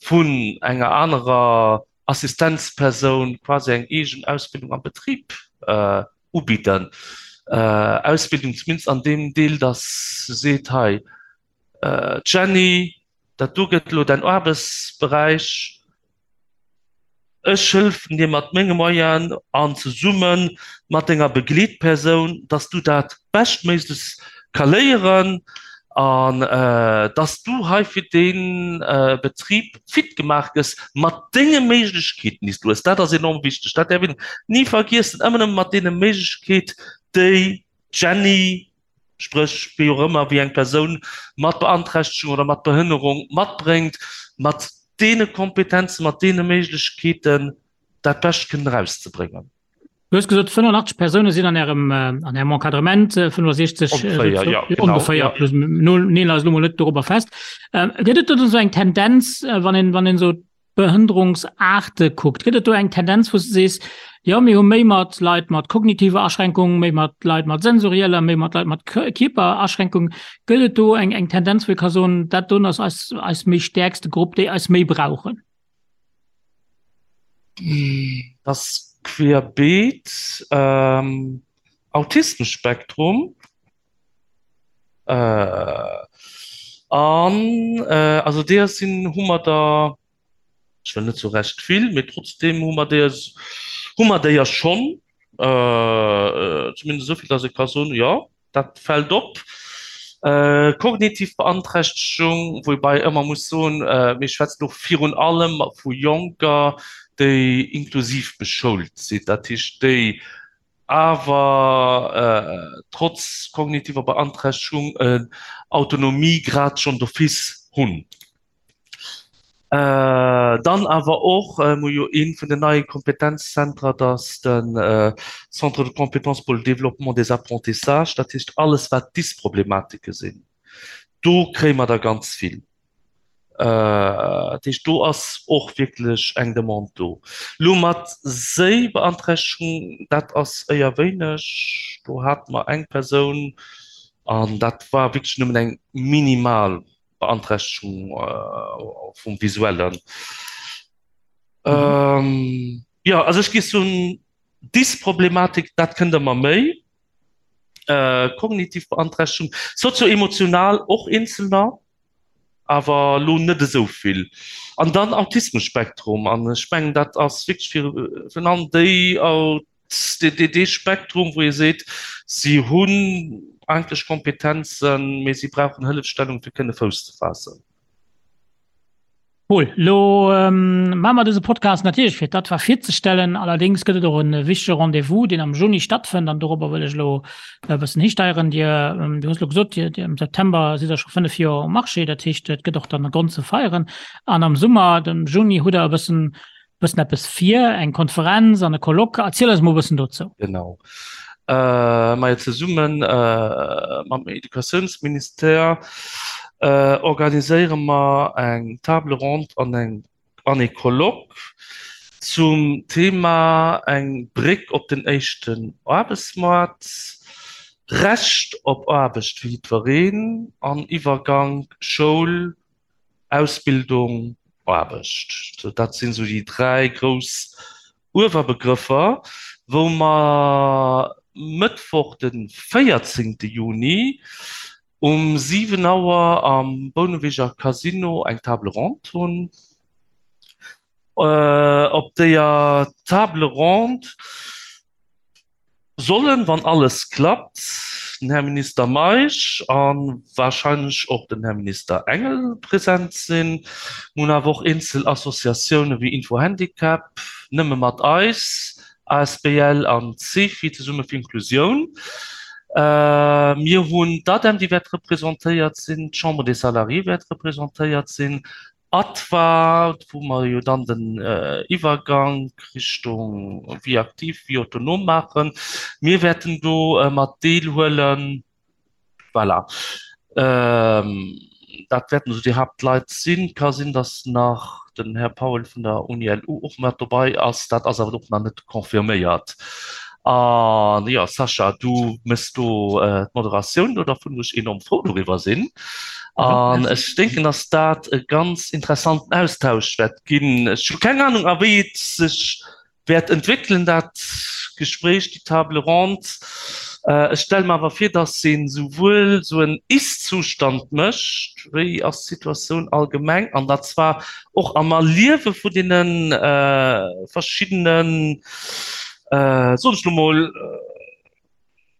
vun enger anerer Assistenzpersoun quasi eng eegen Ausbildung am Betrib ubidden. Ausbildung zumindest an deem Deel, datt se seet, hei Jenny, dat do gëtt elo däin Aarbechtsberäich, Ech hëllefen dir mat menge Moyenen an zesumme mat denger Begleetpersoun, dass du dat beschtméiglechst ka léieren an dass du hei fir dee Betrib fit gemaach gëss mat denge Méiglechkeeten, déi s du hues. Dat ass enorm wichteg, dat däerf een ni vergiessen, ëmmer nëmme mat deene Méiglechkeet, déi d'Jenny, spréch wéi och ëmmer, wéi eng Persoun mat Beanträchtegung oder mat Behënnerung matbréngt, mat deene Kompetenzen, mat deene Méiglechkeeten dat Bescht kënnen erauszebréngen. Du hues gesot, 85 Persoune sinn an Ärem, an Ärem Encadrement, 65 Ongeféier, jo, genau, ongeféier, plus, neel eis elo mol net dorobber fest. Gëtt et do esou eng Tendenz, wann een, wann een esou Behënnerungsaarte kuckt, gëtt et do eng Tendenz, wou s de sees, jo mir hu méi mat Leit mat kognitiver Aschränkung, méi mat Leit mat sensorieller, méi mat Leit mat Kierperaschränkung? Gëtt et do eng eng Tendenz, wou ee ka soen, dat doen ass eis eis méi stäerkste Grupp, déi eis méi brauchen? Dat ass querbeet. Autismus-Spektrum. An also deeër sinn, hu mer der, ech wëll net soe recht vill, mee trotzdeem hu mer deeër, hu mer deeër schonn, zumindest esou vill, datt ee ka soen, jo, dat fält op. Kognitiv Beanträchtegung, woubäi ëmmer muss soen, mir schwätzen do virun allem vu Jonker, déi inklusiv beschoult sinn, dat heescht déi awer trotz kognitiver Beanträchtegung en Autonomiegrad schonn d'office hunn. Dann awer och, mir hu jo ee vun den neie Kompetenzzentrer, dat ass de Centre de compétences pour le développement des apprentissages, dat heescht alles wat Dysproblematike sinn, do kréie mer der ganz vill. Dat heescht, do ass och wierklech eng Demande do. Elo mat Séibeanträchtegung, dat ass éier wéineg. Do hate mer eng Persoun an dat war wierklech nëmmen eng minimal Beanträchtegung vum Visuellen. Jo, also ech géif soen, Dysproblematik, dat kënnt ëmmer méi. Kognitiv Beanträchtegung, sozio-emotional och eenzelner. awer elo net esou vill. An dann Autismus-Spektrum, an ech mengen, dat ass wierklech fir virun allem déi, dee Spektrum, wou ee seet, si hunn eigentlech Kompetenzen, mee si brauchen Hëllefstellung, fir kënne Fouss ze faassen. Paul, lo maache mer dëse Podcast natierlech fir d'ADFA virzestellen. Allerdéngs gëtt et och e wichtege Rendez-vous, deen am Juni stattfënnt an dorobber wëll ech elo e bëssen histeieren. Dir, du hues elo gesot, Dir, Dir am September sidd Der scho 5 Joer um Marché, dat heescht, et gëtt och dann e Grond ze feieren. An am Summer, dem Juni, hutt Der e bëssen, bëssen eppes vir, eng Konferenz an e Colloque. Erziel eis mol e bëssen dozou. Genau. Majo, zesumme mam Educatiounsministère organiséiere mer eng Table ronde an eng an ee Colloque zum Thema Eng Bréck op den éischten Aarbechtsmaart, Recht op Aarbecht fir jiddwereen an Iwwergank Schoul, Ausbildung, Aarbecht. Dat sinn esou déi 3 grouss Uewerbegrëffer, wou mer Mëttwoch de 14 Juni um 7 Auer am Bouneweger Casino eng Table ronde hunn. Op deeër Table ronde sollen, wann alles klappt, den Här Minister Meisch a wahrscheinlech och den Här Minister Engel present sinn. Mir hunn awer och eenzel Associatioune wéi Info-Handicap, Nëmme mat eis asbl an d'Cefi, Zesumme fir Inklusioun. Mir hunn d'ADEM, déi wäert representéiert sinn, d'Chambre des Salariés wäert representéiert sinn, ADVA, wou mer jo dann den Iwwergank Richtung Vie active, vie autonome maachen. Mir wäerten do mat deelhuelen. Voilà. Dat wäerten esou déi Haaptleit sinn. Ka sinn, datt nach den Här Powell vun der Uni-LU och mat dobei ass. Dat ass awer och nach net confirméiert. An jo, Sascha, du méchs do d'Moderatioun do dervun, wou ech enorm frou doriwwer sinn. An ech denken, datt dat e ganz interessanten Austausch wäert ginn. Ech hu keng Anung, a wéi et sech wäert entwéckelen, dat Gespréich, déi Table ronde. Ech stelle mer awer vir, datt ee souwuel esou en Ist-Zustand mécht, wéi ass d'Situatioun allgemeng, an dat zwar och am Erliewe vun deene verschiddenen, soen ech elo mol,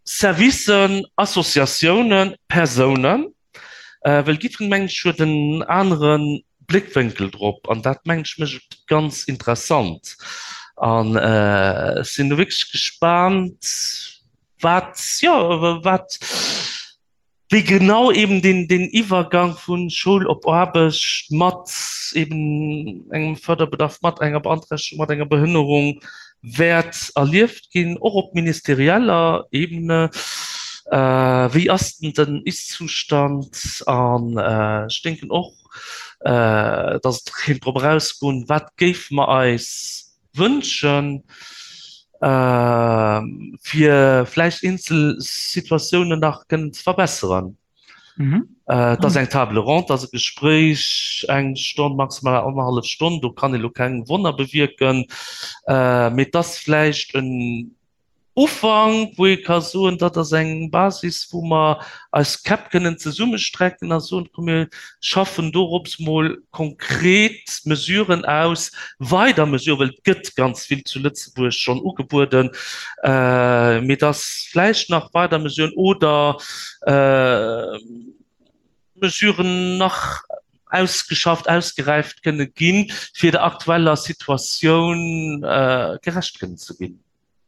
Servicen, Associatiounen, Persounen, well jiddwereen, mengen ech, huet en anere Bléckwénkel drop an dat, mengen ech, mécht et ganz interessant. An ech sinn do wierklech gespaant, wat, jo, wat, wéi genau eben deen, deen Iwwergang vu Schoul op Aarbecht mat eben engem Förderbedarf, mat enger Beanträchtegung, mat enger Behënnerung wäert erlieft ginn, och op ministerieller Ebene. Wéi ass denn den Ist-Zustand? An ech denken och, dass et kéint drop erausgoen, wat géife mer eis wënschen, fir vläicht eenzel Situatiounen nach kënnen ze verbesseren. Et ass eng Table ronde, et ass e Gespréich, eng Stonn, maximal annerhallef Stonn, do kann ee lo keng Wonner bewierken, mee et ass vläicht en. Ufank, wou ee ka soen, dat ass eng Basis, wou mer eis Käpp kënnen zesummestrecken a soen, komm mir schaffen dorops mol konkret Mesuren aus, weider Mesuren, well et gëtt ganz vill zu Lëtzebuerg schonn ugebueden, mee dass vläicht nach weider Mesuren oder Mesuren nach ausgeschafft, ausgeräift kënne ginn, fir der aktueller Situatioun gerecht kënnen ze ginn.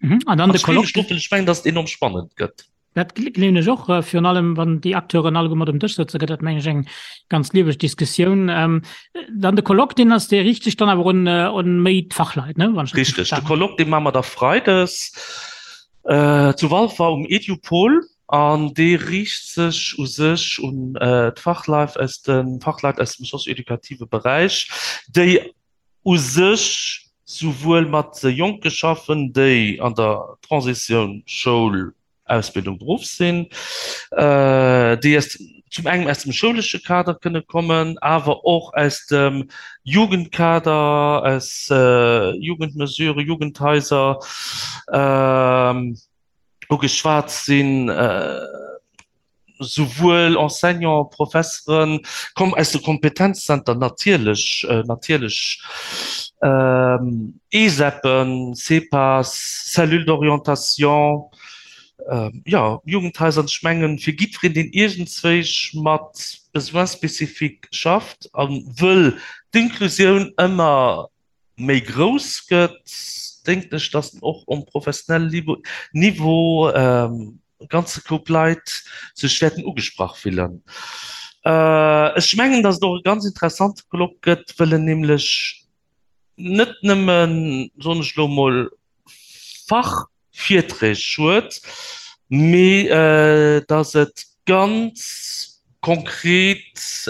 Mhm. An dann de Colloque. Ech mengen, dass et enorm spannend gëtt. Dat gleewen ech och, äh, virun allem wann déi Acteuren alleguer mat um Dësch sëtzen, gëtt dat meng ech eng ganz lieweg Diskussioun. Ähm, dann de Colloque, deen ass, dee riicht sech dann awer un, äh, un méi d'Fachleit, ne? Wann ech richtig Richtig, de Colloque, dee maache mer da freides äh, zu Walfer um Edupol an dee riicht sech u sech un äh, d'Fachleit aus dem Fachleit aus dem socio-educative Beräich, déi u sech souwuel mat Jonke schaffen, déi an der Transitioun Schoul, Ausbildung, Beruff sinn, déi aus zum engem aus dem schoulesche Kader kënne kommen, awer och aus dem Jugendkader, aus Jugendmesuren, Jugendhaiser ugeschwat sinn. Souwuel Enseignants, Professeren, komm aus de Kompetenzzenter natierlech, natierlech ESEPen, CEPAs, Cellule d'orientation, jo, Jugendhaiser. An ech mengen, fir jiddwereen, deen iergendzwéich mat Besoins spécifiques schafft a wëll d'Inklusioun ëmmer méi grouss gëtt, denken ech, dass och um professionelle Niveau e ganze Koup Leit sech wäerten ugesprach fillen. Ech mengen, dass et och e ganz interessante Colloque gëtt, wëll en nämlech net nëmmen, soen ech elo emol, Fach, Virträg huet, mee datt et ganz konkret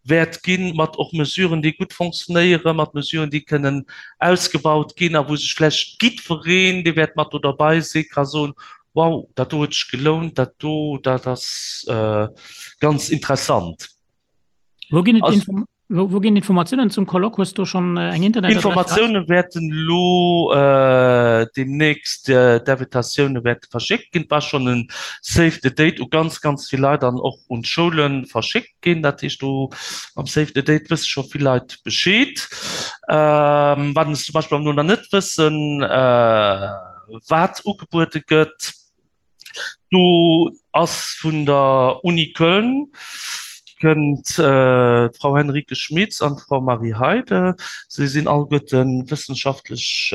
wäert ginn, mat och Mesuren, déi gutt fonctionnéieren, mat Mesuren, déi kënnen ausgebaut ginn a wou sech vläicht jiddwereen, dee wäert mat do derbei sinn, ka soen, Wow, dat do huet sech gelount, dat do, dat ass ganz interessant. Wou ginn et Wou ginn Informatiounen zum Colloque? Hues du schonn eng Internetadress? Informatioune wäerten elo deemnächst, d'Invitatioune wäerte verschéckt ginn. Et war schonn e Save the Date u ganz, ganz vill Leit an och un d'Schoule verschéckt ginn. Dat heescht, do mam Save the Date wësse scho vill Leit Bescheed. Wat se zum Beispill awer elo nach net wëssen, wat ugebuede gëtt. Do ass vun der Uni Köln kënnt d'Frau Henrike Schmitz an d'Frau Marie Heide. Si sinn alleguerte wëssenschaftlech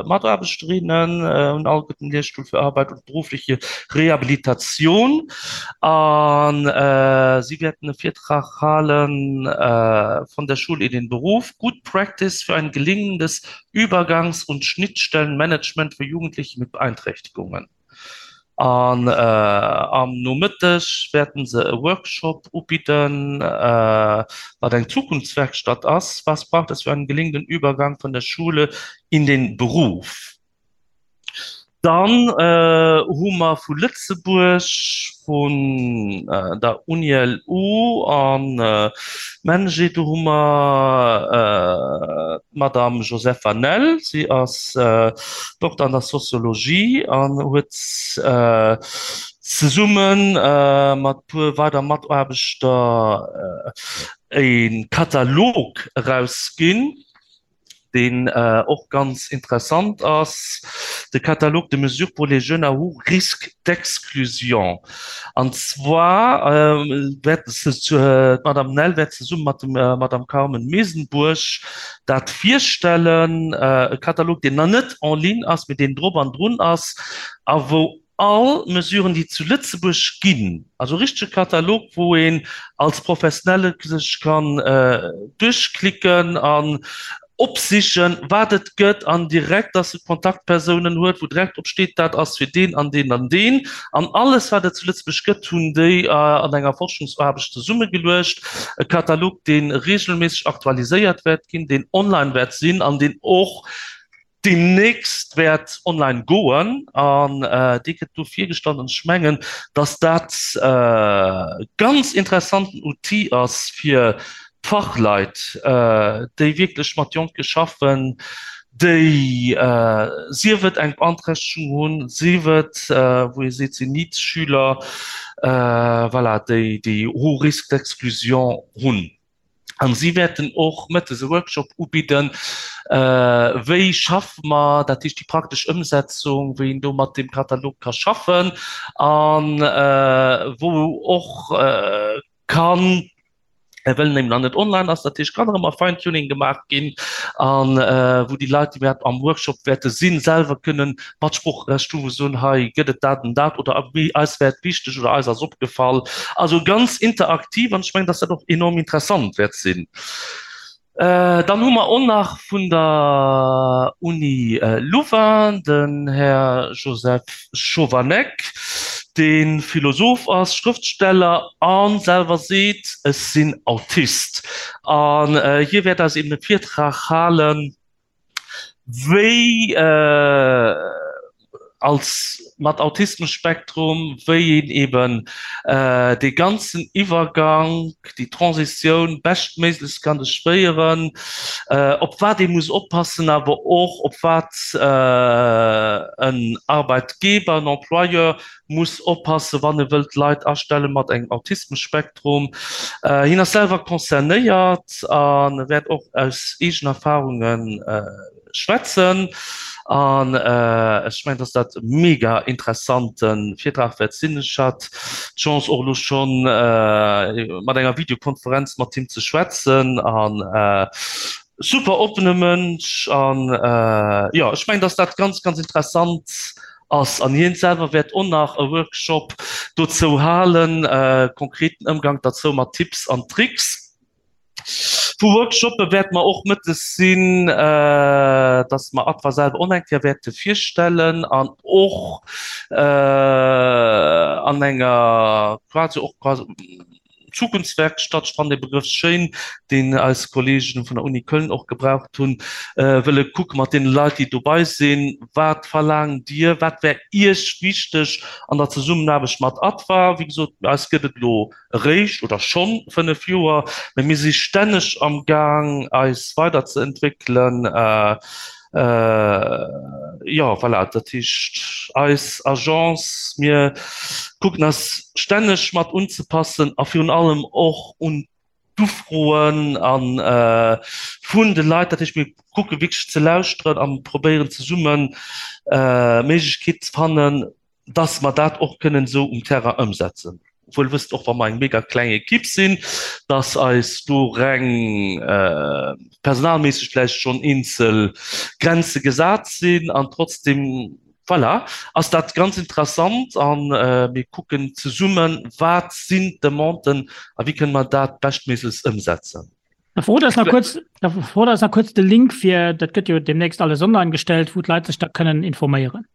Mataarbechterinnen, hunn alleguerten Lehrstuhl für Arbeit und berufliche Rehabilitation a si wäerten e Virtrag halen Von der Schule in den Beruf, Good Practice für ein gelingendes Übergangs und Schnittstellenmanagement für Jugendliche mit Beeinträchtigungen. An am Nomëtteg wäerten se e Workshop ubidden, wat eng Zukunftswerkstatt ass, Was braucht es für einen gelingenden Übergang von der Schule in den Beruf? Dann hu mer vu Lëtzebuerg, vun der UniLU a MENJE, do hu mer d'Madame Josepha Nell. Si ass Dokter an der Soziologie an huet zesumme mat e puer weider Mataarbechter e Katalog erausginn. deen och ganz interessant ass, de Catalogue de mesures pour les jeunes à haut risque d'exclusion. An zwar wäert d'Madame Nell wäert zesumme mat der Madame Carmen Mesenbourg dat virstellen, e Katalog, deen nach net en ligne ass, mee deen drop an drun ass a wou all Mesuren, déi zu Lëtzebuerg ginn, also e richtege Katalog, wou een als Professionelle sech kann duerchklicken an opsichen, wat et gëtt an direkt, dass e Kontaktpersounen huet, wou direkt drop steet, dat ass fir deen an deen an deen. An alles, wat et zu Lëtzebuerg gëtt, hunn déi an enger Forschungsaarbecht zesummegeluecht. E Katalog, dee regelméisseg aktualiséiert wäert ginn, deen online wäert sinn an deen och deemnächst wäert online goen an dee gëtt do virgestallt an ech mengen, dass dat e ganz interessanten Outil ass fir d'Fachleit, déi wierklech mat Jonke schaffen, Déi, sief et eng Beanträchtegung hunn, sief et, wou ee seet, sinn NEET-Schüler, voilà, déi déi haut risque d'exclusion hunn. An si wäerten och mëttes e Workshop ubidden, wéi schaffe mer, dat heescht déi praktesch Ëmsetzung, wéi een do mat deem Katalog ka schaffen an wou och kann, well en eben nach net online ass, dat heescht kann nach ëmmer Fine-Tuning gemaach ginn an wou déi Leit, déi wäert am Workshop wäerte sinn, selwer kënnen Matsproocherecht hu wou soen, hei gëtt et dat an dat oder eis wär et wichteg oder eis ass opgefall. Also ganz interaktiv an ech mengen, dass dat och enorm interessant wäert sinn. Dann hu mer och nach vun der Uni Louvain den Här Joseph Chovanec, dee Philosoph ass, Schrëftsteller a selwer seet, Ech sinn Autist. An hie wäert eis eben e Virtrag halen, wéi als mat Autismusspektrum, wéi een eben dee ganzen Iwwergank, déi Transitioun beschtméiglechst kann duerchféieren, op wat ee muss oppassen, awer och op wat en Arbeitgeber, en Employeur muss oppassen, wann e wëllt Leit astelle mat engem Autismusspektrum. Hien ass selwer concernéiert a wäert och aus eegenen Erfarunge schwätzen. An ech mengen, dass dat e mega interessante Virtrag wäert sinn. Ech hat d'Chance och elo scho mat enger Videokonferenz mat him ze schwätzen an super oppene Mënsch. An jo, ech mengen, dass dat ganz, ganz interessant ass. An hien selwer wäert och nach e Workshop dozou halen, konkreten Ëmgang derzou mat Tipps an Tricks. Vu Workshoppe wäerte mer och mëttes sinn, dass mer Adva selwer och eng Kéier wäerte virstellen an och an enger quasi och quasi Zukunftswerkstatt, ech fannen dee Begrëff schéin, deen eis Kollegen vun der Uni Köln och gebraucht hunn, wëlle kucke mat deene Leit, déi dobei sinn, Wat verlaangt Dir, wat wär Iech wichteg an der Zesummenaarbecht mat ADVA? Wéi gesot, eis gëtt et elo eréischt oder schonn 5 Joer, mä mir si stänneg am Gaang, eis weiderzeentwéckelen. Jo, voilà, dat heescht, eis Agence, mir kucken eis stänneg mat unzepassen a virun allem och un d'Ufroen a vun de Leit. Dat heescht, mir kucke wierklech ze lauschteren a probéieren zesumme Méiglechkeet ze fannen, dass mer dat och kënnen esou um Terrain ëmsetzen. Wuel wësst, och wa mer eng mega kleng Ekipp sinn, dass eis do reng personalméisseg vläicht schonn eenzel Grenze gesat sinn an trotzdem, voilà, ass dat ganz interessant a mir kucken zesummen, wat sinn d'Demanden a wéi kënne mer dat beschtméiglechst ëmsetzen. Da verrot eis nach kuerz, da verrot eis nach kuerz de Link fir, dat gëtt jo deemnächst alles online gestellt, wou d'Leit sech da kënnen informéieren.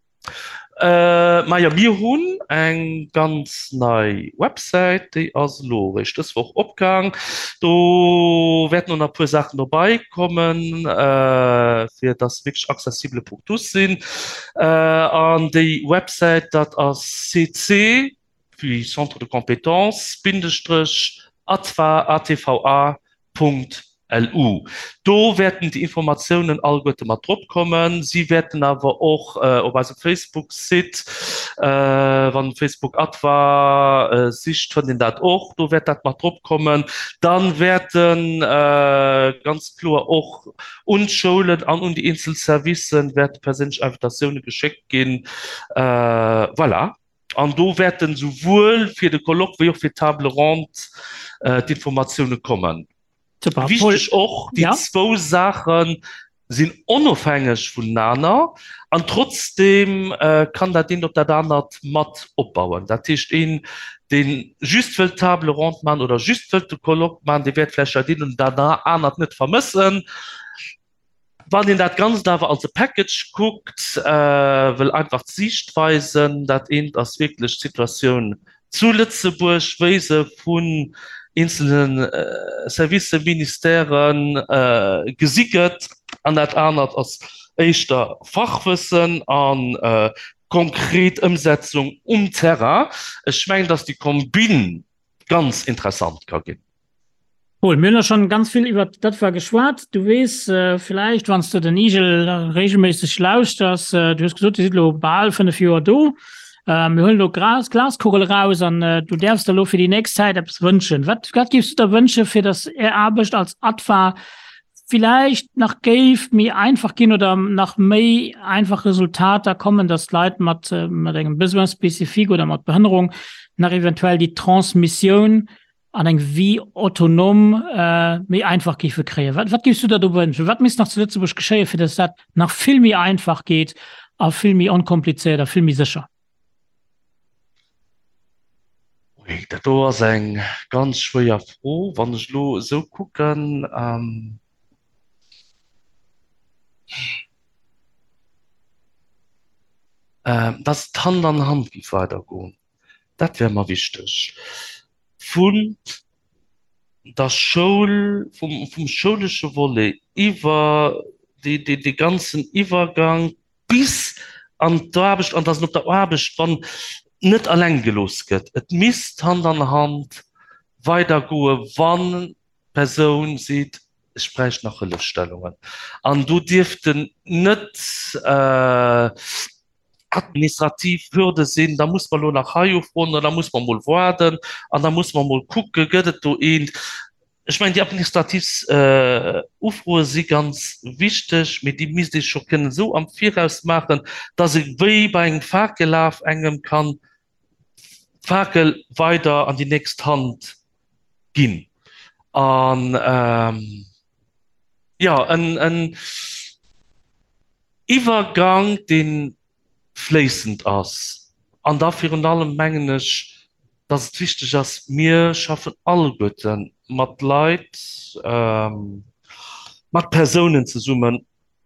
Äh, majo, mir hunn eng ganz nei Websäit, déi ass elo eréischt dës Woch opgaang. Do wäerten och nach e puer Saachen dobei kommen, fir dass se wierklech accessible pour tous sinn. An déi Websäit, dat ass cc, wéi Centre de compétences, Bindestrech, atva, atva, Punkt LU. Do wäerten déi Informatiounen alleguerte mat drop kommen. Si wäerten awer och op eisem Facebook-Site, wann Facebook ADVA sicht, fënnt een dat och, do wäert dat mat drop kommen. Da wäerte ganz kloer och un d'Schoulen an un déi eenzel Servicen wäerte perséinlech Invitatioune geschéckt ginn. Voilà. An do wäerten esouwuel fir de Colloque wéi och fir d'Table ronde d'Informatioune kommen. Super. Wichteg och, déi zwou Saache sinn onofhängeg vonenaner an trotzdeem kann dat eent op dat anert mat opbauen. Dat heescht, een, dee just wëllt d'Table ronde maachen oder just wëllt de Colloque maachen, dee wäert vläicht dat eent oder dat anert net vermëssen. Wann een dat Ganzt awer als e Package kuckt, wëll einfach d'Siichtweisen, dat eent ass wierklech d'Situatioun zu Lëtzebuerg, wéi se vun eenzelne Servicen, Ministèren gesi gëtt, an dat anert ass éischter Fachwëssen a konkret Ëmsetzung um Terrain. Ech mengen, datt déi Kombinn ganz interessant ka ginn. Paul, mir hunn der schonn ganz vill iwwert dat war geschwat. Du weess villäicht, wann s de den Igel regelméisseg lauschters, du hues gesot, Dir sidd elo bal 5 Joer do. Mir huelen elo d'Glas, d'Glaskugel eraus an du däerfs der elo fir déi nächst Zäit eppes wënschen. Wat, wat géifs du der wënsche fir datt Är Aarbecht als ADFA villäicht nach géif méi einfach ginn oder nach méi einfach Resultater kommen, datt d'Leit mat, mat engem Besoin spécifique oder mat Behënnerung nach eventuell déi Transmissioun an eng Vie autonome méi einfach géife kréien. Wat, wat géifs du der do wënschen? Wat misst nach zu Lëtzebuerg geschéien, fir datt dat nach vill méi einfach geet a vill méi onkomplizéiert a vill méi sécher? Ui, dat do ass eng ganz schwéier Fro. Wann ech elo esou kucken, datt et Hand an Hand géif weidergoen, dat wär mer wichteg. Vun der Schoul, vum, vum schoulesche Volet iwwer dee, dee, dee ganzen Iwwergang bis an d'Aarbecht, an dass en op der Aarbecht wann net alleng gelooss gëtt. Et misst Hand an Hand weidergoe wann d'Persoun seet, ech bräicht nach Hëllefstellungen. An do dierften net administrativ Hürde sinn, da muss mer elo nach hei ufroen oder da muss mer emol waarden an da muss mer emol kucken, gëtt et do eent. Ech mengen, déi administrativ Ufroe si ganz wichteg, mee déi misst ee scho kënnen esou am Viraus maachen, dass ee wéi bei engem Fakellaf engem kann d'Fakel weider an déi nächst Hand ginn. An, jo, en Iwwergang, dee fléissend ass. An da virun allem mengen ech, dass et wichteg ass, mir schaffen alleguerte mat Leit, mat Persounen zesummen,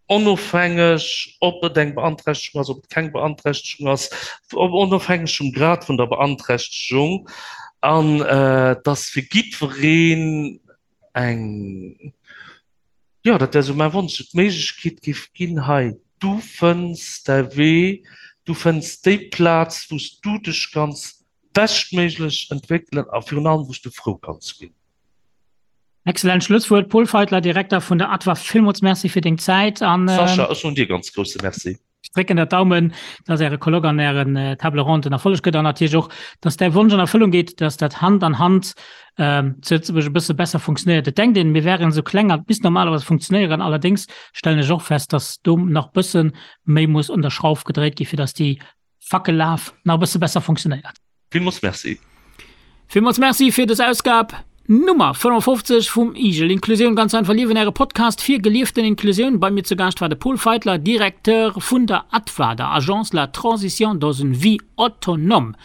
onofhängeg ob et eng Beanträchtegung ass, ob et keng Beanträchtegung ass, onofhängeg vum Grad vun der Beanträchtegung, an dass fir jiddwereen eng, jo, dat wär esou mäi Wonsch, et d'Méiglechkeet géif ginn, hei, du fënns däi Wee, du fënns déi Plaz, wou s du dech kanns beschtméiglech entwéckelen a virun allem, wou s du frou kanns ginn. Excellent Schlusswuert, Paul Feitler, Direkter vun der ADVA. Villmools Merci fir deng Zäit an. Sascha, ech soen dir ganz grousse Merci. Ech drécken der d'Daumen, dass Äre Colloque an Ären Table ronde en Erfolleg gëtt an natierlech och, dass däi Wonsch an Erfëllung geet, dass dat Hand an Hand zu Lëtzebuerg e bësse besser funktionéiert. Et denkt een, mir wären esou kleng an et misst normalerweis funktionéieren. Allerdéngs stellen ech och fest, dass do nach bësse méi muss un der Schrauf gedréit gi fir dass déi Fackellaf nach e bësse besser funktionéiert. Villmools Merci. Villmools Merci fir des Ausgab Nummer 55 vum Igel Inklusioun ganz einfach liewen, äre Podcast fir gelieften Inklusioun. Bei mir zu Gaascht war de Paul Feitler, Directeur vun der ATVA, der Agence la Transition dans une vie autonome.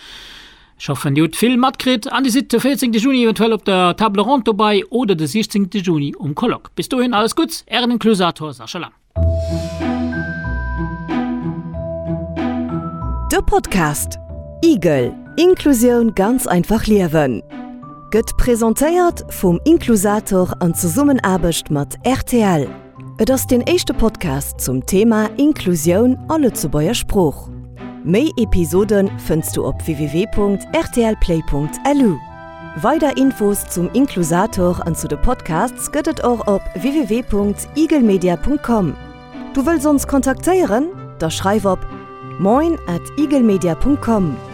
Ech hoffen dir hutt vill matkritt an dir sidd de 14 Juni eventuell op der Table Ronde dobei oder de 16 Juni um Colloque. Bis dohin alles Gutts, ären Inklusator Sascha Lang. De Podcast Igel, Inklusioun ganz einfach liewen gëtt presentéiert vum Inklusator an Zesummenaarbecht mat rtl. Et ass deen éischte Podcast zum Thema Inklusioun a Lëtzebuerger Sprooch. Méi Episode fënns du op www.rtlplay.lu. Weider Infos zum Inklusator an zu de Podcasts gëtt et och op www.igelmedia.com. Du wëlls ons kontaktéieren? Da schreif op moin at igelmedia.com.